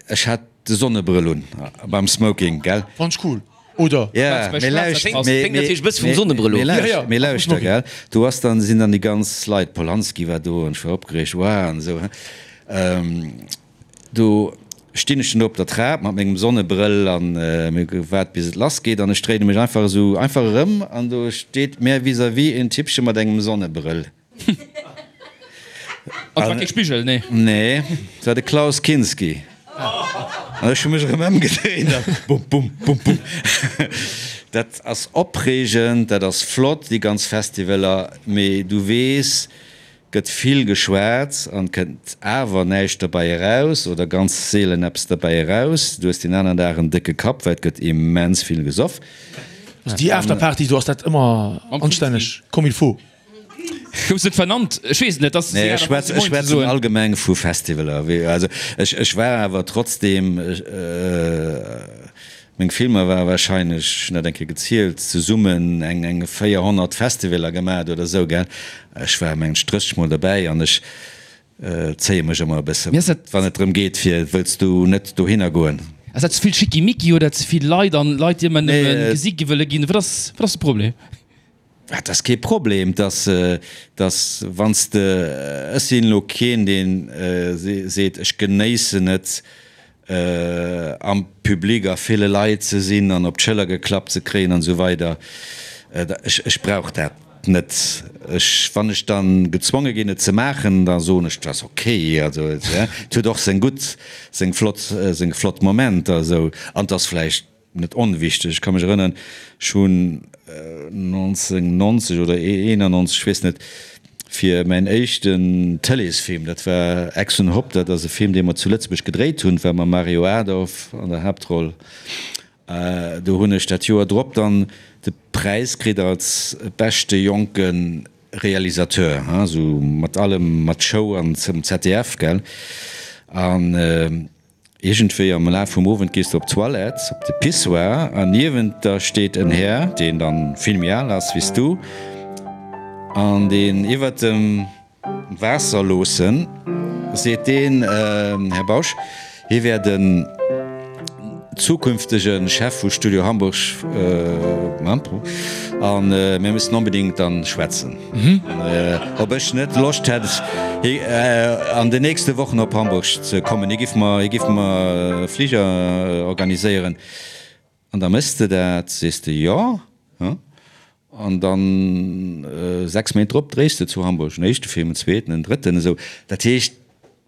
ech hat de Sonnebrëll un beim Smoking, gell? Fand ech cool, oder? Ja, mee lauscht, mee lauschter, gell? Do ass dann, sinn dann déi ganz Leit, Polanski war do an ech war opgereegt, wow an esou, Do stinn ech dann do op der Trap mat mengem Sonnebrëll an mir gewaart bis et lass geet an ech dréine mech einfach esou einfach erëm an do steet mär vis-à-vis en Typpche mat engem Sonnebrëll. An et war kee Spigel, nee? Nee, et war de Klaus Kinski. An ech hu mech erëm ëmgedréint a bum, bum, bum, bum. Dat ass opreegend, dat ass flott, déi ganz Festivaler, mee du weess, gëtt vill geschwat an kënnt awer näischt derbäi eraus oder ganz seelen eppes derbäi eraus. Du hues deen aneren Dag en décke Kapp, well et gëtt immens vill gesoff. Also déi Afterparty do, ass dat ëmmer anstänneg comme il faut? Goufs net vernannt? Ech weess et net. Ass Nee, ech schwätzen, ech schwätzen allgemeng vu Festivaler. Wéi, also ech, ech war awer trotzdem, meng Filmer ware wahrscheinlech, ech hunn dat eng Kéier gezielt, zesummen eng, eng 400 Festivaler gemat oder esou, gell. Ech war mengen ech 30 mol derbäi an ech zéie mech ëmmer e bëssen, wann et drëm geet fir, wëlls du net dohinner goen? Ass dat ze vill Schickimicki oder ze vill Leit an Leit, déi ëmmer nëmme gesi gi wëlle ginn? Wat ass, wat ass de Problem? Dat ass kee Problem, dass, dass wann s de, ech sinn elo keen, deen seet, ech genéissen et, am Public a ville Leit ze sinn an op d'Schëller geklappt ze kréien an esou weider. Ech, ech brauch dat net. Ech, wann ech da gezwonge ginn, et ze maachen, da soen ech, dat ass ok. Also et huet och seng gutt, seng flott, seng flott Momenter esou an et ass vläicht Net onwichteg, ech ka mech erënneren, ech hunn 1990 oder 91, ech weess net, fir mäin éischten Tëleesfilm, dat war Ex und Hopp, dat ass e Film, dee mer zu Lëtzebuerg gedréit hunn, war mam Mario Adorf an der Haaptroll, do hunn ech dat Joer drop dann de Präis kritt als beschte jonke Realisateur, esou mat allem, mat Show an zum ZDF, gell, an. Iergendwéi am Laf vum Owend gees de op d'Toilette, op de Pissoir, an niewent der steet en Här, deen dann vill méi al ass wéi s du, an deen iwwert dem Waasser loossen, seet deen, Här Bausch, hie wär den zukünftege Chef vu Studio Hamburg, a mir müssen onbedéngt dann schwätzen. Ob ech net Loscht hätt an den nächste Wochen op Hamburg ze kommen. Hie giff mer, hie giff mer e Fliger organiséieren. An da méchs de dat, sees de jo, an dann 6 Méint drop dréis de zu Hamburg en éischte Film, en zweeten, en drëtten, esou. Dat heescht.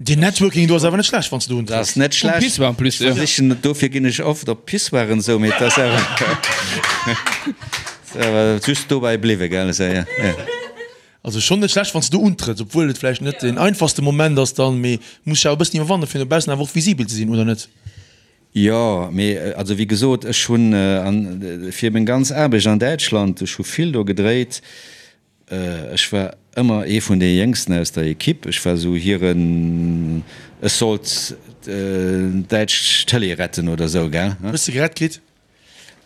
Deen Networking do ass awer net schlecht, wann s de do Dat ass net schlecht. Um Pissoir en plus, jo. Ech versichen, dofir ginn ech oft op Pissoiren esou, mee et ass awer, ass awer just dobäi bliwwe, gell, esou, jo, jo. Also schonn net schlecht, wann s de do untrëtts, obwuel et vläicht net deen einfachste Moment ass dann, mee muss sech awer e bëssen iwwerwannen, fir no baussen awer och visibel ze sinn, oder net? Jo, mee also wéi gesot, ech hunn fir meng ganz Aarbecht an Däitschland, ech hu vill do gedréit, Ech war ëmmer ee vun de Jéngsten aus der Equipe. Ech war esou hiren, ech sollt d'däitsch Tëlee retten oder esou, gell? Hues de gerett kritt?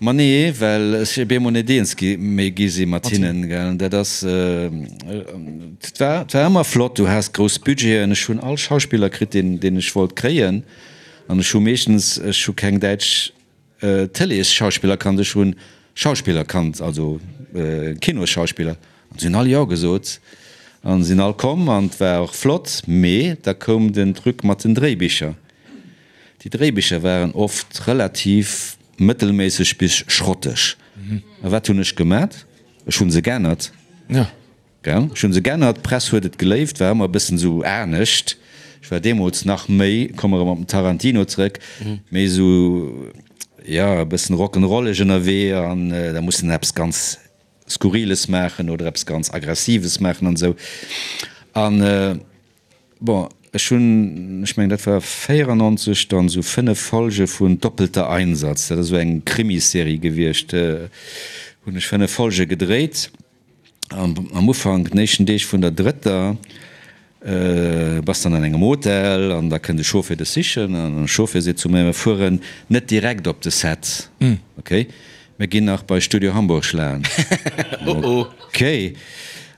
Ma nee, well ech op eemol net eens gi méi gi si mat hinnen, gell? Dat ass, et war, et war ëmmer flott. Du has grouss Budgeten. Ech hunn all Schauspiller kritt, deen, deen ech wollt kréien. An ech hu meeschtens, ech hu keng däitsch Tëleesschauspiller kannt, ech hunn Schauspiller kannt, also Kinosschauspiller, an si hunn all Jo gesot an sinn all komm an et war och flott. Mee da koum den Truc mat den Dréibicher. Déi Dréibicher waren oft relativ mëttelméisseg bis schrotteg. A wat hunn ech gemat? Ech hunn se geännert. Gell, ech hunn se gennert, d'Press huet et geléift, war ëmmer e bëssen esou anescht. Ech war deemools nach méi, komme erëm op den Tarantino zrëck, méi esou, jo, e bëssen rock'n'rolleg ënnerwee an da muss en eppes ganz Skurriles maachen oder eppes ganz Aggressives maachen an esou. An bon, ech hunn, ech mengen dat war 94, dann esou 5 Folge vun Doppelter Einsatz, dat ass esou eng Krimiserie gewiescht, hunn ech 5 Folge gedréit. Am Ufank, den éischten Deeg vun der drëtter, bass dann an engem Hotel an da kënnt e Chauffer dech sichen an de Chauffer seet zu mir, mir fueren net direkt op de Set, ok, mir ginn nach bei Studio Hamburg schlaen. Ok.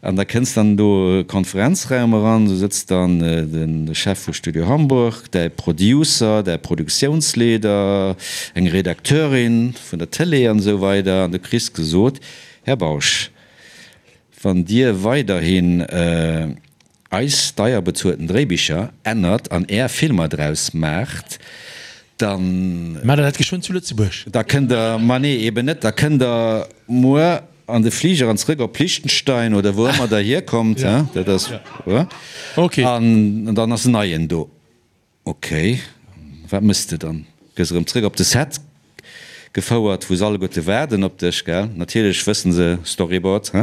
An da kënns dann do e Konferenzraum eran, do sëtzt dann de Chef vu Studio Hamburg, däi Producer, däi Produktiounsleeder, eng Redakteurin vun der Tëlee an esou weider an du kriss gesot, Här Bausch, wann Dir weiderhin eis deier bezuelten Dréibicher ännert an Är Filmer draus maacht, dann. Maacht Der dat geschwënn zu Lëtzebuerg? Da kënnt Der, ma nee, eben net, da kënnt Der muer an de Fliger an zrëck op Liechtenstein oder wou ëmmer Der hierkommt, dat ass, an dann ass en neien do. Ok, wat mëss de dann? Gëss erëm zréck op de Set gefouert, wou se alleguerte waarden op dech, gell? Natierlech wëssen se, Storyboard, he?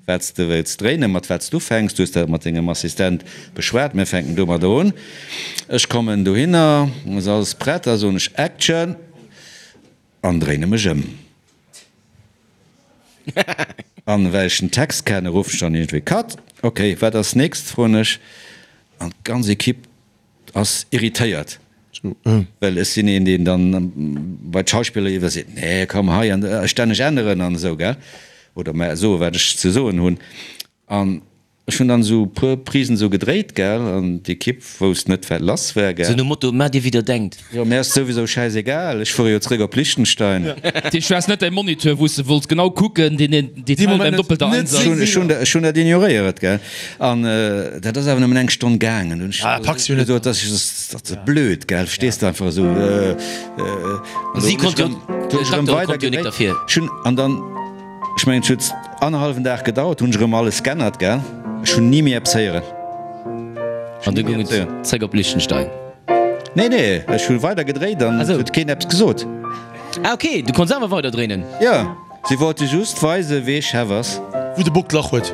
Wat s de wëlls dréinen, mat wat s du ufänks. Du hues dat mat dengem Assistent beschwat, mir fänken domadder un. Ech kommen dohinner, ass alles prett, da soen ech Action an dréine mech ëm. An well ech den Text kennen, ruffen ech dann iergendwéi Cut. Ok, wat ass nächst, froen ech. An d'ganz Equipe Ass irritéiert, well ech sinn een, deen dann bei d'Schauspiller iwwer seet, nee komm hei an stänneg änneren an esou, gell, oder mä soe wat ech ze soen hunn. An ech hunn dann esou e puer Prisen esou gedréit, gell, an d'Ekipp wousst net wat lass war, gell. Sou nom Motto, Maacht dir wéi der denkt. Jo, mär ass souwisou schäisegal, ech fuere jo zréck op Liechtenstein. Dat heescht, du has net däi Moniteur, wou s de wollts genau kucken, deen Detail beim doppelter Einsatz. Ech hunn dat ignoréiert, gell. An dat ass awer nëmmen eng Stonn gaangen. Hunn ech gesot, dat ass blöd, gell, verstees de, einfach esou. Si konnt jo, d'Doktere konnt jo nik derfir. Ech hunn, an dann, ech mengen, et huet annerhallwen Dag gedauert, hunn ech erëm alles g'ännert, gell. Ech hunn ni méi eppes héieren. An du goung et zréck op Liechtenstein? Nee, nee, ech hu weider gedréit an et huet keen eppes gesot. Ah ok, du konns awer weider dréinen? Jo. Si wollte just weisen, wee Chef ass. Wou de Bock d'Lach huet.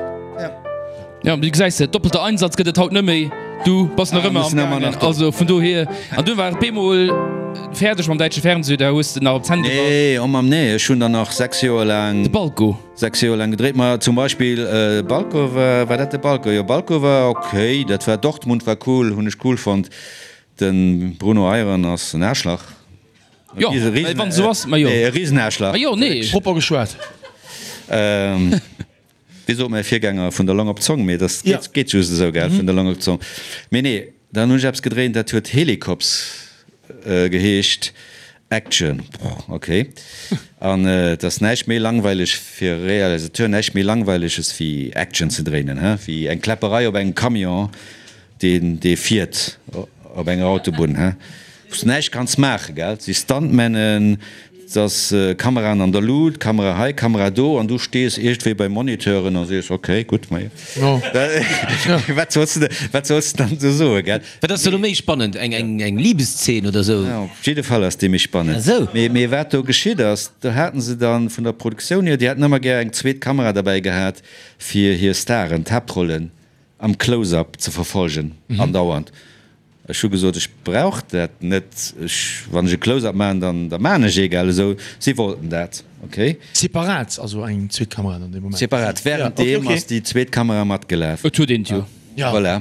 Jo, du gesäis et, doppelter Einsatz gëtt et haut net méi. Du bass nach ëmmer am gaangen. Also vun dohier. An dunn war et bemol fäerdeg mam däitsche Fernseh, da hues de nach op d'Zänn gebass. Nee, oh Mamm, nee, ech hunn der nach 6 Joer laang. De Balko. 6 Joer laang gedréit. Ma zum Beispill Balko war, war dat de Balko? Jo, Balko war ok, dat war Dortmund war cool, hunn ech cool fonnt. De Bruno Eyron ass en Aarschlach. Jo, well wann esou ass, ma jo. E Riesenaarschlach. Ma jo, nee. Propper geschwat. Wéi sot mäi Virgänger, vun der Long op d'Zong, mee dat geet just esou, gell, vun der Long op d'Zong. Mee nee, dann hunn ech eppes gedréint, dat huet Helicops geheescht. Action, ok. An et ass näischt méi langweileg fir e Realisateur, näischt méi Langweileges wéi Action ze dréinen, he, wéi eng Kläpperei op engem Camion. Deen dee fiert op enger Autobunn, he, wou s de näischt kanns maachen, gell? Et si Stuntmännen. Et ass Kameraen an der Lut, Kamera hei, Kamera do, an du stees iergendwéi bei Moniteuren a sees, ok, gutt, ma jo. Wat solls de, wat solls de dann do soen, gell? Wat ass da lo méi spannend, eng, eng, eng Libeszeen oder sou? Ja, op jidde Fall ass déi méi spannend. Ah sou. Mee, mee wat do geschitt ass, do haten se dann vun der Produktioun hier, déi hätten ëmmer gär eng zweet Kamera derbäi gehat, fir hir Staren, d'Haaptrollen am Close-up ze verfolgen, andauernd. Ech hu gesot, ech brauch dat net, ech, wann ech e Close-up maachen, dann, da maachen ech ee, gell, esou. Si wollten dat, okay. Separat, also eng zweet Kamera dann dee Moment? Separat, während deem ass déi zweet Kamera matgelaf. Et huet een et jo. Ja. Voilà.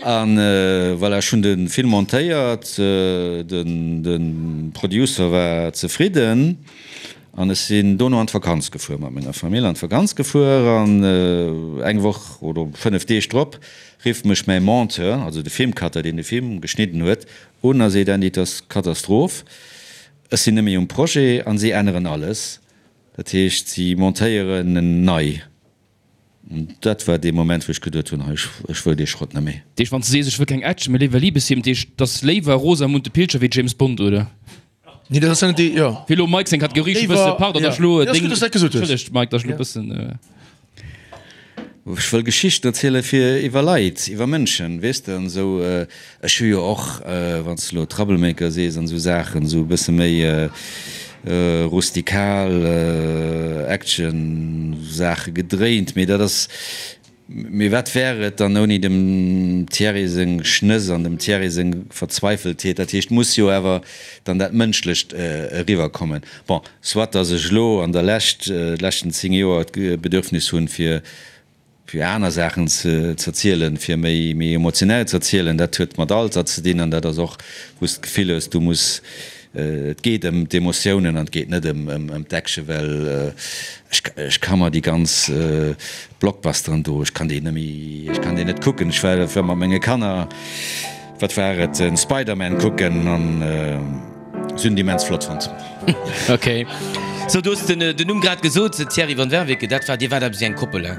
An voilà, ech hunn de Film montéiert, den, de Producer war zefridden an ech sinn dono an d'Vakanz gefuer, mat menger Famill an d'Vakanz gefuer an eng Woch oder 5 Deeg drop Rifft mech mäi Monteur, also de Filmcutter, deen de Film geschnidden huet, un a seet, Andy, et ass Katastroph, ech sinn net méi um Projet an si änneren alles. Dat heescht, si montéieren en nei. An dat war dee Moment, wou ech geduet hunn, hei, ech wëll dee Schrott net méi. Dat heescht, wann s de sees, ech wëll keng Action, mee léiwer Liebesfilm, dat heescht, et ass léiwer Rosamunde Pilcher wéi James Bond, oder? Nee, dat ass net déi, jo. Fir elo Mike seng Kategorie scho bësse, pardon, datt ech elo deng, entschëllegt Mike, datt ech elo bëssen. Ech wëll Geschichten erziele fir iwwer Leit, iwwer Mënschen, weess de, an esou. Ech hu jo och, wann s de elo Troublemaker sees an esou Saachen, esou e bësse méi rustikal Action-Saache gedréint, mee dat ass, Mee wat wär et dann ouni dem Thierry seng Schnëss an dem Thierry seng Verzweifeltheet? Dat heescht, muss jo awer dann dat Mënschlecht eriwwerkommen. Bon, soit datt ech elo an der Lescht, de leschten 10 Joer d'Bedürfnis hunn, fir fir aner Saachen ze erzielen, fir méi méi emotionell ze erzielen, dat huet mat Alter ze dinn an dat ass och, wou s de d'Gefill hues, du muss Et geet ëm d'Emotiounen an et geet net ëm d'Action, well ech ka mer déi ganz Blockbusteren do, ech kann déi net méi, ech kann déi net kucken. Ech war mat menge Kanner, wat war et, den Spider-Man kucken an si hunn et immens flott fonnt. Ok, sou du hues den Numm grad gesot, Thierry van Werveke, dat war, dir waart eppes wéi eng Koppel, he?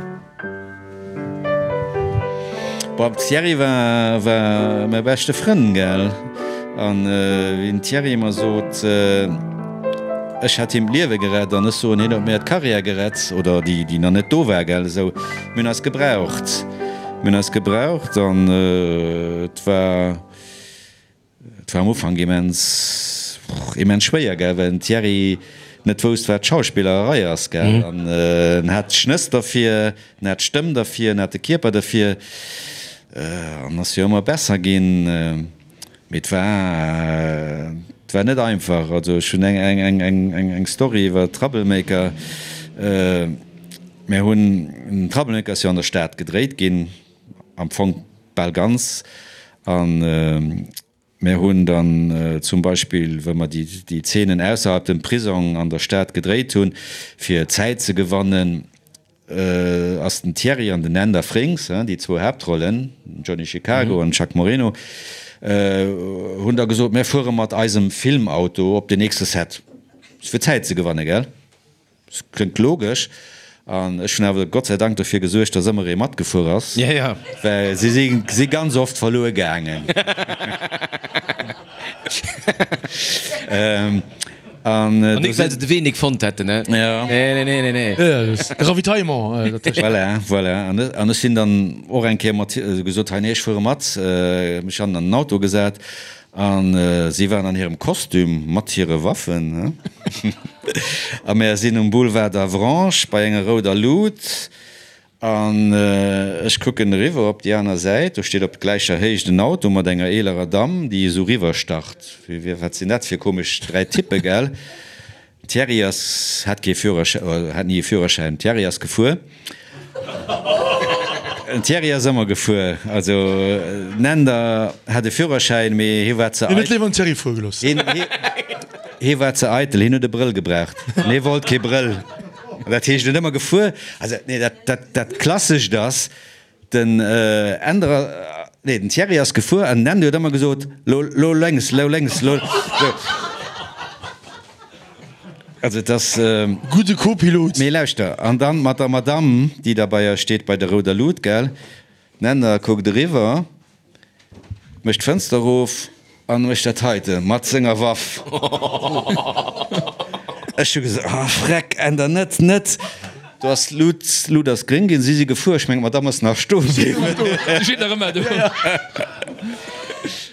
Bon, Thierry war war mäi beschte Frënn, gell? An wéi den Thierry ëmmer sot, ech hätt him d'Liewe gerett an ech soen, hien huet mir d'Karriär gerett, oder déi, déi nach net do war, gell? Esou, mir hunn eis gebraucht, mir hunn eis gebraucht an et war. Et war am Ufank immens, immens schwéier, gell, well den Thierry net wousst, wat Schauspillerei ass, gell. An en hat d'Schnëss derfir, en hat d'Stëmm derfir, en hat de Kierper derfir an ass jo ëmmer besser ginn. Mee et war, et war net einfach. Also ech hunn eng, eng, eng, eng, eng Story iwwer Troublemaker. Mir hunn, Troublemaker ass jo an der Stad gedréit ginn, am Fong bal ganz. A mir hunn dann zum Beispill, wou mer déi Zeenen ausserhalb dem Prisong an der Stad gedréit hunn, fir Zäit ze gewannen, ass den Thierry an den Änder Frings, déi zwou Haaptrollen, den Johnny Chicago an den Chuck Moreno, hunn da gesot, mir fuere mat eisem Filmauto op den nächste Set, fir Zäit ze gewannen, gell? Kléngt logesch. An ech hunn awer Gott sei Dank dofir gesuergt, dass ëmmer ee matgefuer ass, well si si ganz oft verluer gaangen. An nik well se de Wee nik fonnt hätten, ne? Nee, nee, nee, nee, nee. De Ravitaillement dertëscht. Voilà, voilà. An ech sinn dann och eng Kéier mat gesot, hei, nee, ech fuere mat. Mech hannen an den Auto gesat. A si waren an hirem Kostüm mat hire Waffen. A mär sinn um Boulevard d'Avranches bei enger rouder Lut. An ech kucken eriwwer op déi aner Säit, do steet op gläicher Héicht en Auto mat enger eelerer Damm, déi esou riwwerstart. Wat sinn dat fir komesch 3 Typpe, gell? Thierry ass, hat kee Führerschäin, oder hat ni e Führerschäin. Thierry ass gefuer. Den Thierry ass ëmmer gefuer. Also den Änder hat e Führerschäin, mee hie war ze Hien huet léiwer den Thierry fuere gelooss. Hien, hie, hie war ze eitel, hien huet e Brëll gebraucht. An hie wollt kee Brëll. Dat heescht, en huet ëmmer gefuer. Also, nee, dat, dat, dat Klassescht ass, Den Änder, nee, den Thierry ass gefuer an den Änder huet ëmmer gesot, Lo, lo lénks, lo lénks, lo. Sou. Also et ass. Gudde Co-Pilot. Mee lauschter, an dann mat der Madamm, déi da bei eis steet, bei der rouder Lut, gell? Den Änder kuckt eriwwer, mécht d'Fënster erof an mécht dat heite mat senger Waff. Ech hu gesot, oh Freck, änder net, net. Do ass d'Lut, d'Lut ass gréng ginn, si si gefuer. Ech mengen, d'Madame ass nach stoe bliwwen. Si steet nach ëmmer do.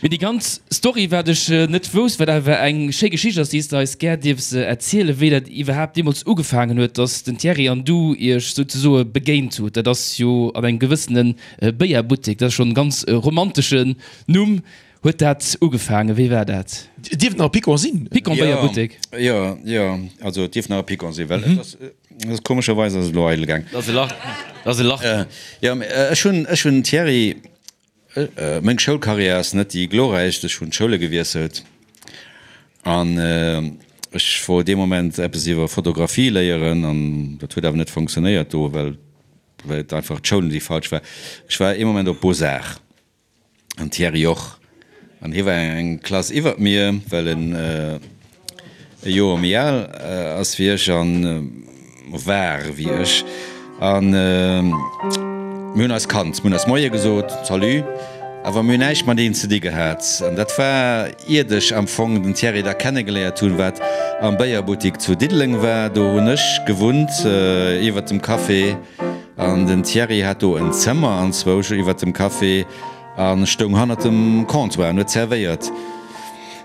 Mee déi ganz Story, wat ech net wousst, wat awer eng schéi Geschicht ass, déi s de eis gär dierfs erzielen, wéi dat iwwerhaapt deemools ugefaangen huet, dass den Thierry an du iech souzesoe begéint hutt. Dat ass jo an engem gewëssene Béierbuttek, dat ass schonn e ganz romanteschen Numm. Huet dat ugefaangen? Wéi war dat? Et dierft nach e Picon sinn. Picon Béierbuttek. Jo, jo, also et dierft nach e Picon sinn, well et ass, komescherweis ass et elo eidel gaang. Dat ass e Lach, dat ass e Lach. Jo, mee ech hunn, ech hunn den Thierry, meng Schoulkarriär ass net déi glorräichst, ech hunn d'Schoule gewiesselt an ech wollt dee Moment eppes iwwer Fotografie léieren an dat huet awer net fonctionnéiert do, well, well et einfach d'Schoul déi falsch war. Ech war ee Moment op Beaux-Arts. An Thierry och. An hie war eng Klass iwwert mir, well en e Joer méi al ass wéi ech an war wéi ech. An mir hunn eis kannt, mir hunn eis Moie gesot, Salut, awer mir hunn näischt mateneen ze di gehat. An dat war iert ech am Fong den Thierry da kennegeléiert hunn, wat am Béierbuttik zu Diddeleng war. Do hunn ech gewunnt, iwwert dem Café. An den Thierry hat do en Zëmmer anzwousch iwwert dem Café a stoung hannert dem Comptoir an huet zerwéiert.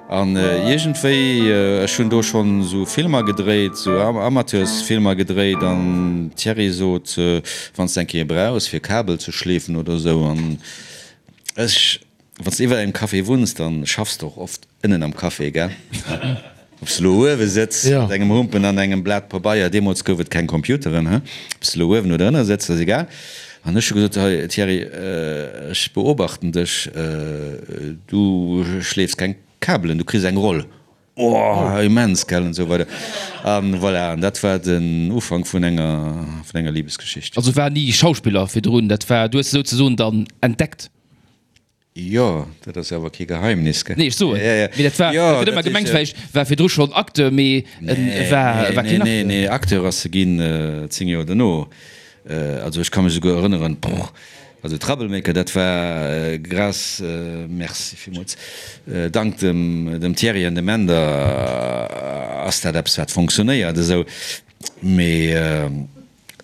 An iergendwéi, ech hunn do schonn esou Filmer gedréit, esou Amateursfilmer gedréit an Thierry sot, wann s de eng Kéier brauchs fir Kabel ze schleefen oder esou an ech, Wann s de iwwer engem Café wunns, dann schaffs de och oft ënnen am Café, gell? Ob s de elo uewe sëtz mat engem Humpen an engem Blat Pabeier, deemools gouf et keng Computeren, he? Ob s de elo uewen oder ënne sëtz, ass egal. An ech hu gesot, Hei Thierry, ech beobachten dech, du schleefs keng Kabelen, du kriss eng Roll. Oh, immens, gell, an esou weider. An voilà, an dat war den Ufank vun enger, vun enger Libesgeschicht. Also war ni Schauspiller virdrun, dat war, du hues se souzesoen dann entdeckt? Jo, dat ass jo awer kee Geheimnis, gell? Nee, ech soen, mee dat war, dat gëtt ëmmer gemengt, vläicht war virdru schonn Acteur, mee en war, war keen Acteur. Nee, nee, Acteur ass e ginn 10 Joer dono. Also ech ka mech esouguer erënneren, brrr, also Troublemaker, dat war grâce, merci villmools, dank dem, dem Thierry an dem Änder ass dat eppes wat fonctionnéiert esou, mee.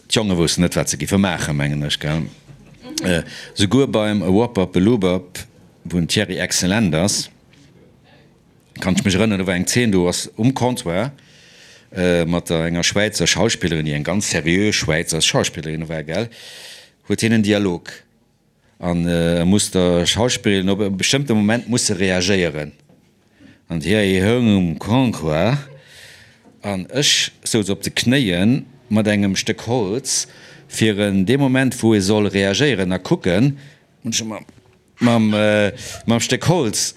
D'Jonge woussten net, wat se giffe maachen, mengen ech, gell? Souguer beim Wop-Up-a-Loop-Up, wou den Thierry exzellent ass, kann ech mech erënneren, do war eng Zeen, do ass um Comptoir mat der enger Schwäizer Schauspillerin, déi eng ganz seriö Schwäizer Schauspillerin war, gell, huet hien en Dialog. An e muss der Schauspillerin op e bestëmmte Moment muss se reagéieren. An déi houng um Comptoir an ech souz op de Knéie mat engem Stéck Holz, fir en dee Moment wou e soll reagéieren a kucken, hunn ech e mam mam Stéck Holz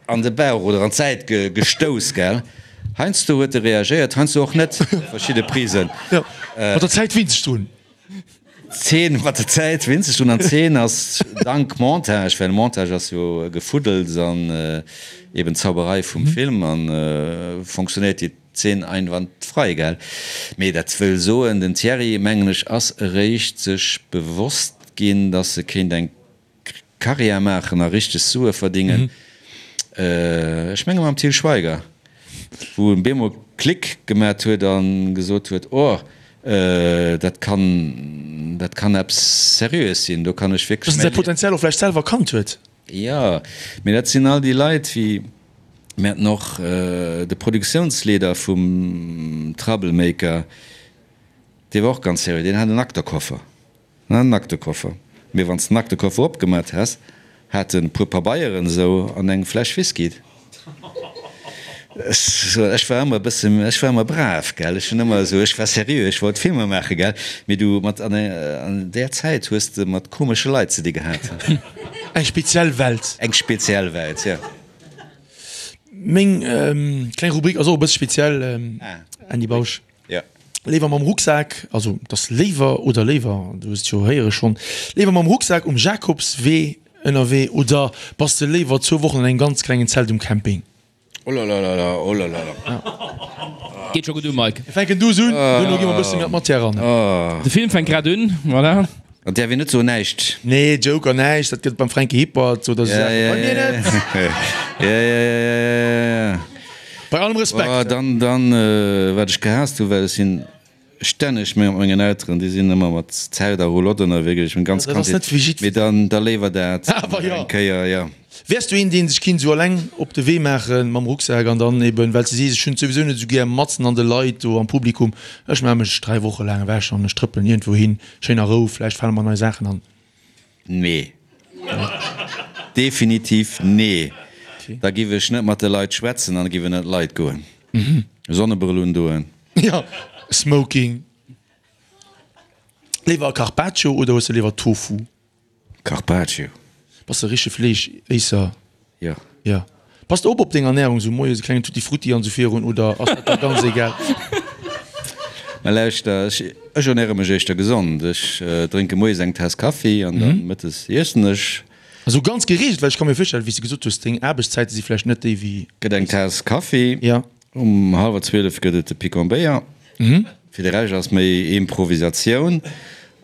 an de Bauch oder an d'Säit gestouss, gell. Heiansdo huet e reagéiert, heiansdo och net, verschidde Prisen. Jo, mat der Zäit winnt sech drun. D'Zeen mat der Zäit winzeg drun an d'Zeen ass dank Montage, well Montage ass jo Gefuddels an eben Zauberei vum Film an fonctionnéiert déi Zeen einwandfrei, gell? Mee dat wëll soen, den Thierry, mengen ech, ass eréischt sech bewosst ginn, dass e kéint eng Karriär maachen a richteg Sue verdingen. Ech menge mam Til Schweiger, wou en bemol Klick gemat huet a gesot huet, oh, dat kann, dat kann eppes Seriöes sinn, do kann ech wierklech Dass en säi Potenzial och vläicht selwer erkannt huet. Jo, mee dat sinn all déi Leit, wéi mir haten och de Produktiounsleeder vum Troublemaker, dee war och ganz seriö, deen hat en Aktekoffer. En Aktekoffer. Mee wann s den Aktekoffer opgemat häss, hat en e puer Pabeieren esou an eng Fläsch Whisky. Ech war ëmmer e bësse, ech war ëmmer brav, gell, ech hunn ëmmer esou, ech war seriö, ech wollt Filmer maachen, gell. Mee du, mat, an där Zäit hues de mat komesche Leit ze di gehat. Eng speziell Welt. Eng speziell Welt, jo. Meng kleng Rubrik ass och e bësse speziell, Andy Bausch. Jo. Léiwer mam Rucksak, also et ass léiwer oder léiwer, du hues et jo héiere schonn, léiwer mam Rucksak um Jakobswee ënnerwee oder bass de léiwer zwou Wochen an engem ganz klengen Zelt um Camping? Olalala, olalala. Geet scho gutt u, Mike. Mir fänken duuss un, duerno gi mer e bësse méi an d'Matière eran. De Film fänkt grad un, voilà. An däerf een net soen näischt. Nee, Joker näischt, dat gëtt et beim Fränki Hippert oder esou Saachen bei mir net. Ja, ja, ja, ja, ja, ja. Bei allem Respekt. Oh, dann, dann, wat ech gehaasst hu, well ech sinn stänneg mat mengen Elteren, déi sinn ëmmer mat Zelt a Roulotte ënnerwee gewiescht, meng ganz Dat ass Kandheet. net fir jiddwer. Mee dann, da léiwer dat Awer jo. eng Kéier, jo. Wäers du een, dee sech kinnt esou alleng op de Wee maache mam Rucksak an dann eben, well s de sees, ech hunn et souwisou net esou gär matzen an de Leit do am Publikum, ech maache mech 3 Woche laang ewech an ech trëppelen iergendwou hin, schéin a Rou, vläicht fale mer nei Saachen an. Nee. Definitiv nee. Da giff ech net mat de Leit schwätzen an giff ënnert d'Leit goen. Sonnebrëll undoen. Jo, Smoking. Léiwer Carpaccio oder hues de léiwer Tofu? Carpaccio. Bass de richtege Fleeschéisser? Jo. Jo. Pass de op op deng Ernährung, sou moies e klengen Tutti Frutti an sou virun, oder ass dat der ganz egal? Mä lauschter, ech ech ernäre mech éischter gesond. Ech drénke moies eng Taass Kaffi an dann mëttes iessen ech. Esou ganz gereegelt, well ech ka mir virstellen, wéi s de gesot hues, deng Aarbechtszäite si vläicht net déi wéi. Gëtt eng Taass Kaffi. Jo. Um hallwer 12 gëtt et de Picon-Béier. Fir de Rescht ass méi Improvisatioun.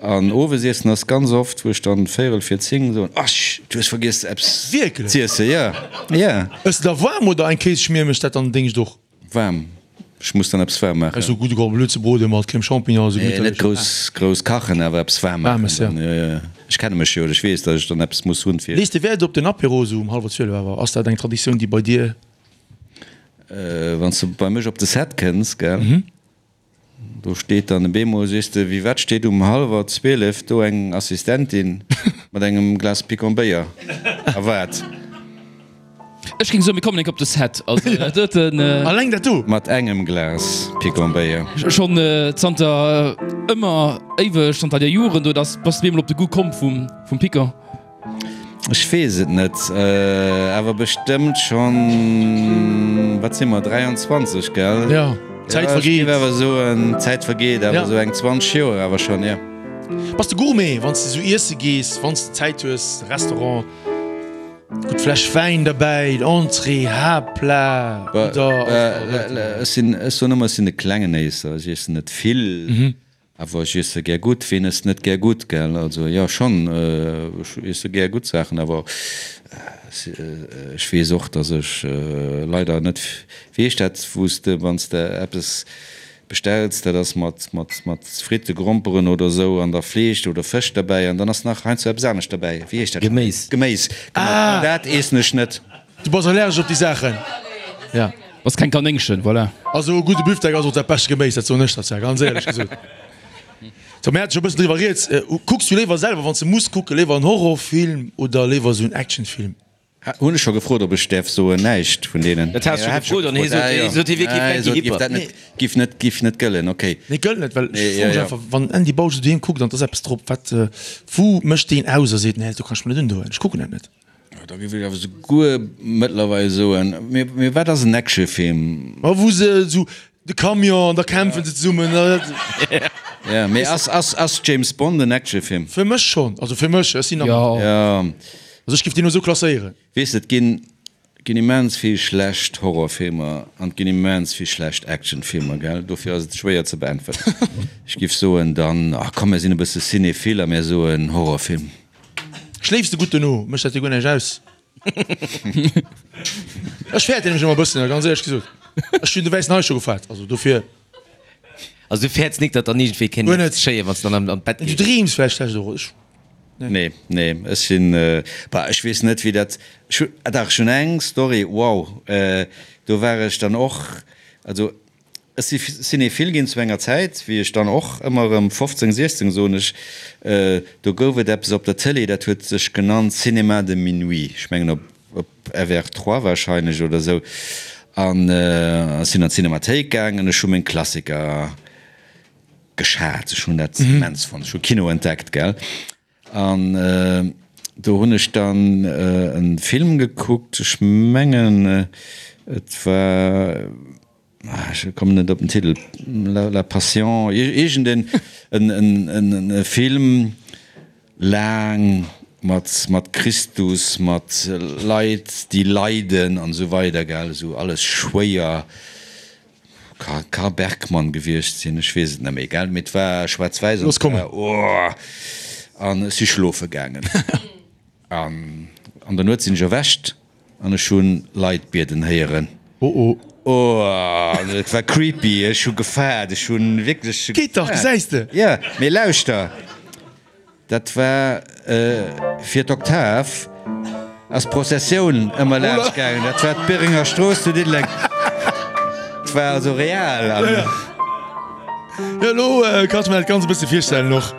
An Owesiessen ass ganz oft, wou ech dann véierel vir 10 soen, Ach, du hues vergiess eppes z'iessen. Jo, jo. Ëss de da waarm oder eng Kéisschmier mécht dat dann déngscht och? Waarm. Ech muss dann eppes waarm maachen. Esou gudde Cordon bleu ze brode mat Crème Champignon, esou Nee, net gemitterlech. grouss, grouss kachen, awer eppes waarm maachen Waarmes, jo. dann. Jo, jo. Ech kenne mech jo, ech weess, datt ech dann eppes muss hunn fir. Lees de Wäert op den Apéro esou um hallwer 12 awer? Ass dat eng Traditioun déi bei dir? Wann s de bei mech op de Set kënns, gell, do steet dann e beemol, sees de, wéi wat steet um hallwer 12 do eng Assistentin mat engem Glas Picon Béier a waart. Ech géing soen, mir kommen enk op de Set. Also dat doten. Alleng dat do? Mat engem Glas Picon Béier. Schonn zanter ëmmer, éiweg, zanter der Joren do, dass bass de beemol op de Goût komm vum Picon. Ech weess et net, awer bestëmmt schonn, wat si mer, 23, gell? Jo, d'Zäit vergeet. Ech géif awer soen, d'Zäit vergeet, awer esou eng 20 Joer awer schonn, jo. Bass de Gourmet, wann s de esou iesse gees, wann s de Zäit hues, Restaurant, gutt Fläsch Wäin derbäi, Entrée, Haaptplat oder? Ech sinn, ech soen ëmmer, ech sinn e klengen Éisser, ech iessen net vill. Awer ech iesse gär gutt. Ween ësst net gär gutt, gell? Also jo, schonn, ech iesse gär gutt Saachen, awer ech weess och, datt ech leider net, wéi heescht dat, wou s de, wann s de eppes bestells, dat ass mat, mat, mat Fritte, Gromperen oder esou an da Fleesch oder Fësch derbäi an dann ass nach heiansdo eppes anescht derbäi. Wéi heescht dat? Geméis. Geméis, genau. Dat iessen ech net. Du bass allergesch op déi Saachen, ja. Bass keng Kanéngchen, voilà. Also e gudde Büftek ass och dat bescht Geméis, dat soen ech der zwar, ganz éierlech gesot. Sou, mir hate scho e bëssen driwwer rieds. Kucks du léiwer selwer, wann s de muss kucken, léiwer en Horrorfilm oder léiwer esou en Actionfilm? Hunn ech scho gefrot, ob ech däerf soen, näischt vun deenen. Dat has du scho gefrot an hie sot, hie sot, hie wier kee Franky Hipper. Giff net, giff net gëllen, ok. Nee, gëllt net, well ech froe mech einfach, wann den Andy Bausch esou doheem kuckt an et ass eppes drop, wat, wou mécht deen aus a seet, nee, do kann ech mer net undoen, ech kucken dat net. Da géif ech awer souguer mëttlerweil soen, mee wat ass en Actionfilm? Ma wou se esou de Camion an da kämpfen se zesummen. Jo, mee ass, ass, ass James Bond en Actionfilm? Fir mech schonn, also fir mech, ech sinn am. Jo. Also ech géif deen elo esou klasséieren. Weess de, et ginn, ginn immens vill schlecht Horrorfilmer an et ginn immens vill schlecht Actionfilmer, gell? Dofir ass et schwéier ze beäntweren. Ech géif soen dann, ach komm, mir sinn e bësse cinéphile a mir soen Horrorfilm. Schléifs de gutt dono? Mécht dat dir guer näischt aus? Ech fäerten nämlech ëmmer e bëssen, ganz éierlech gesot. Ech hunn de wäissen Hai scho gefaart, also dofir. Also du fäerts nik, datt dann iergendwéi kéint Guer net. geschéien, wann s de dann an d'Bett Du gees? dreems vläicht schlecht och. Ech, nee. Nee, nee, ech sinn, bah, ech weess net, wéi dat, ech hu, ah dach, ech hunn eng Story, wow, do war ech dann och, also Ech si Cinéphile ginn zu enger Zäit, wéi ech dann och ëmmer erëm 15, 16, soen ech, do gouf et eppes op der Tëlee, dat huet sech genannt Cinéma de minuit, ech mengen op FR 3 wahrscheinlech oder esou, an ech sinn an d'Cinémathéik gaangen, ech hu meng Klassiker geschat, ech hunn dat immens fonnt, ech hu Kino entdeckt, gell. An do hunn ech dann e Film gekuckt, ech mengen et war, ech kommen net op den Titel, La Passion, iergend en Film, laang, mat Christus, mat Leit déi leiden an esou weider, gell, esou alles schwéier. Ka Bergmann gewiescht sinn, ech weess et net méi, gell, mee et war schwaarz-wäiss an Looss kommen. oh, an ech si schlofe gaangen an an der Nuet sinn ech erwächt an ech hu Leit bieden héieren. Oh oh. Oh, et war creepy, ech hu gefaart, ech hu wierklech Geet dach, gesäis de! Jo, mee lauschter, dat war fir d'Oktav ass d'Prozessioun ëmmer laanscht gaangen, dat war d'Bérenger Strooss zu Diddeleng, et war also real an. Jo, elo kann ech mer dat Ganzt e bësse virstellen och.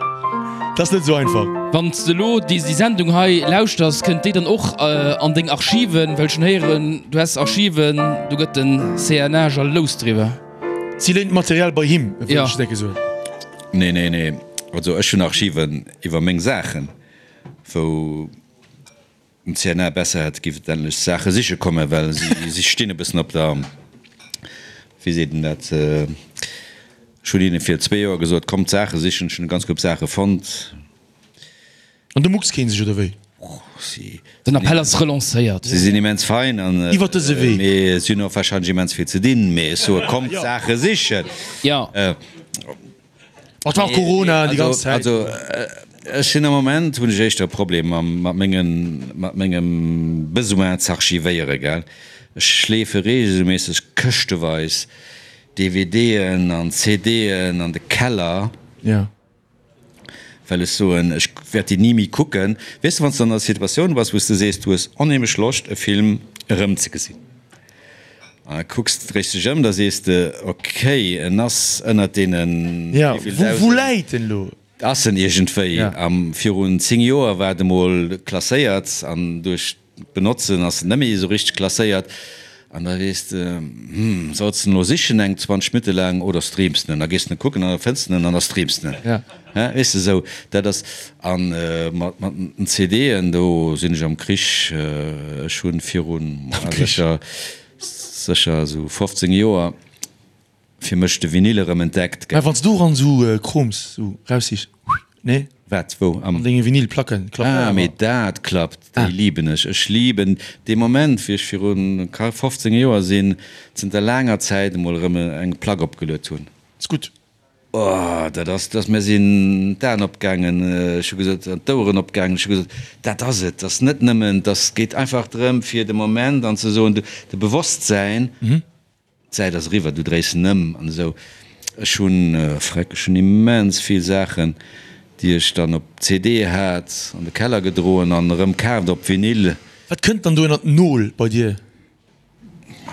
Dat ass net esou einfach. Wann s de elo déi Sendung hei lauschters, kënnt déi dann och an deng Archiven? Well ech hunn héieren, du häss Archiven, do gëtt den CNA jalous driwwer. Si léint d'Material bei him, wëll ech décke soen. Nee, nee, nee. Also ech hunn Archiven iwwer meng Saachen, wou. Den CNA besser hätt giff et endlech Saache siche kommen, well si stinn e bëssen op der, wéi seet een dat, ech hunn hinne vir zwee Joer gesot, kommt Saache sichen, ech hunn e ganz Koup Saache fonnt. An du mucks keen sech, oder wéi? Si. Den Appell ass relancéiert. Si sinn immens fein an. Iwwer dëse Wee. Mee si hunn och warscheinlech immens vill ze dinn, mee ech soe kommt Saache sichen. Jo. Et war och Corona déi ganz Zäit. Also ech sinn am Moment, hunn ech éischter e Problem mam, mat mengen, mat mengem Besoin z'archivéieren, gell. Ech schleefe reegelméisseg këschteweis DVDen an CDen an de Keller, well ech soen, ech wäert déi ni méi kucken. Weess de, wann s de an der Situatioun bass, wou s de sees, du hues onheemlech Loscht e Film erëmzegesinn. An da kucks de, dréis dech ëm, da sees de, ok, en ass ënnert deenen wéivill Dausend. Wou läit en elo? Ass en iergendwéi. A virun 10 Joer war et emol klasséiert an duerch d'Benotzen ass en net méi esou richteg klasséiert. An da weess de, hm, solls de en elo sichen eng 20 Minutte laang oder streams de en? Da gees de en kucken an da fënns de en an da streams de en. Weess de, esou, dat ass. A mat den CDen, do sinn ech am Krich. Ech hunn virun sécher, sécher esou 15 Joer fir mech de Vinyl erëm entdeckt. Mä wann s du eran esou Kroms esou raussichs, nee? Wat, wou? An denge Vinylplacken klappt dat awer. Ah, mee dat klappt, déi liben ech. Ech liben dee Moment, wéi ech virun 15 Joer sinn, zënter laanger Zäit emol erëm eng Plack opgeluet hunn. Ass gutt. Oh, dat ass, dat ass, mir sinn d'Aen opgaangen, ech hu gesot, an d'Oueren opgaangen, ech hu gesot, dat ass et, dat ass net nëmmen, dat geet einfach drëm, fir de Moment an ze soen, de Bewosstsäin, d'Zäit ass eriwwer, du dréis en ëm an esou. Ech hunn, freck, ech hunn immens vill Saachen, déi ech dann op CD hat, an de Keller gedroen an erëm kaaft op Vinyl. Wat kënnt dann do ënnert Nol bei dir?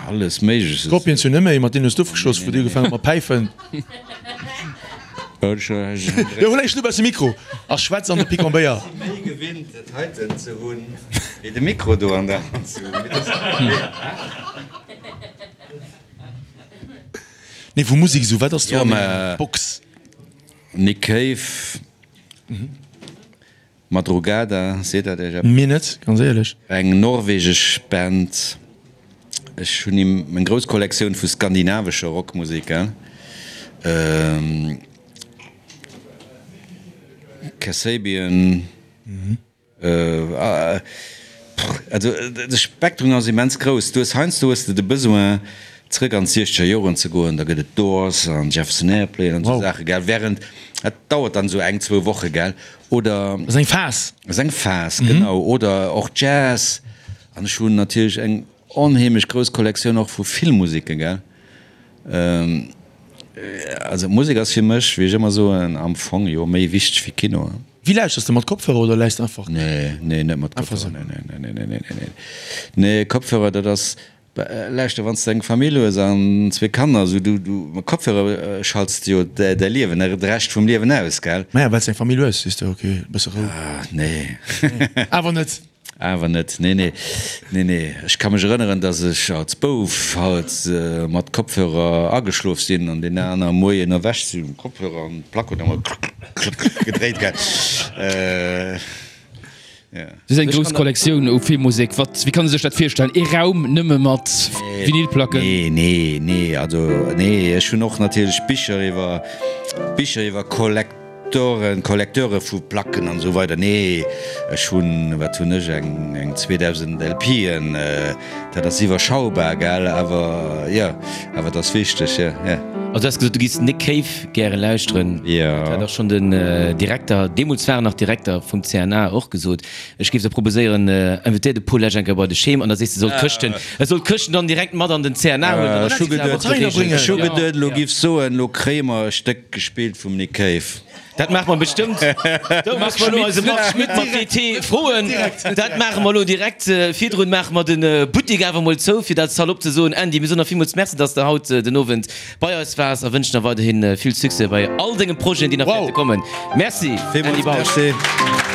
Alles Méigleches. Scorpions jo net méi, mat deenen hues du ofgeschloss, wou déi ugefaangen hu mat päifen. Jo, hol eis lues de Mikro a schwätz an de Picon-Béier. Si méi gewinnt dat heiten ze hunn, wéi de Mikro do an der Hand ze hunn. Nee, vu Musek esou, wat ass do an denger Box? Nick Cave. Madrugada, seet dat iech eppes? Mir net, ganz éierlech. Eng norwegesch Band. Ech hunn eng grouss Kollektioun vu skandinavescher Rockmusek. Kasabian. Also de Spektrum ass immens grouss. Du hues heiansdo hues de de Besoin zrëck an d'siechzeger Joren ze goen, da gëtt et Doors an Jefferson Airplane an esou Saache, gell, während dat dauert dann esou eng, zwou Woche, gell, oder. Ass eng Phas. Ass eng Phas, genau, oder och Jazz. An ech hunn natierlech eng onheemlech grouss Kollektioun och vu Filmmuseken, gell. Also Musek ass fir mech, wéi ech ëmmer soen, am Fong jo méi wichteg wéi Kino. Wéi lauschters de? Mat Kopfhörer oder läiss de einfach? Nee, nee, net mat Kopfhörer. Nee, nee, nee, nee, nee, nee, nee. Kopfhörer, dat ass, lauschter, wann s de eng Famill hues an zwee Kanner, esou, du, du, mat Kopfhörer schalts de jo däi Liewen, de Rescht vum Liewen aus, gell? Maja, well s de eng Famill hues, sees de, ok, e bësse Rou. Ah, nee. Awer net. Awer net, nee, nee, nee, nee. Ech ka mech erënneren, dass ech als Bouf halt mat Kopfhörer ageschlof sinn an deen aner Moien erwächt sinn, Kopfhörer an d'Plack huet ëmmer klëck, klëck, klëck gedréit, gell. Jo. Du hues eng grouss Kollektioun u Filmmusek. Wat, wéi kann ee sech dat virstellen? Ee Raum nëmme mat Vinylplacken? Nee, nee, nee, also nee, ech hunn och natierlech Bicher iwwer, Bicher iwwer Kollek. Toren, Collecteure vu Placken an esou weider. Nee, ech hunn, wat hunn ech, eng eng 2.000 LPen, dat ass iwwerschaubar, gell, awer jo, awer et ass wichteg, jo, jo. Also du has gesot, du giffs Nick Cave gäre lauschteren. Jo. Dat hat och schonn den Direkter, deemools war en nach Direkter vum CNA, och gesot. Ech géif der proposéieren, invitéier de Paul Lesch eng Kéier bei de Schem an da sees de, e soll d'Këschten, e soll d'Këschten dann direkt mat an den CNA huelen. Ech hu geduet, ech hu geduet, elo giffs soen, elo kréie mer e Stéck gespillt vum Nick Cave. Dat maache mer bestëmmt. Do musse mer elo eise Marc Schmitt mat DT froen. Dat maache mer elo direkt. Virdrun maache mer de Buttek awer emol zou, fir dat salopp ze soen. Andy, mir soen der villmools Merci, dass de haut den Owend bei eis waars a wënschen der weiderhi vill Succès bei all denge Projeten, déi nach wäerte kommen. Merci, Andy Villmools Bausch. Merci.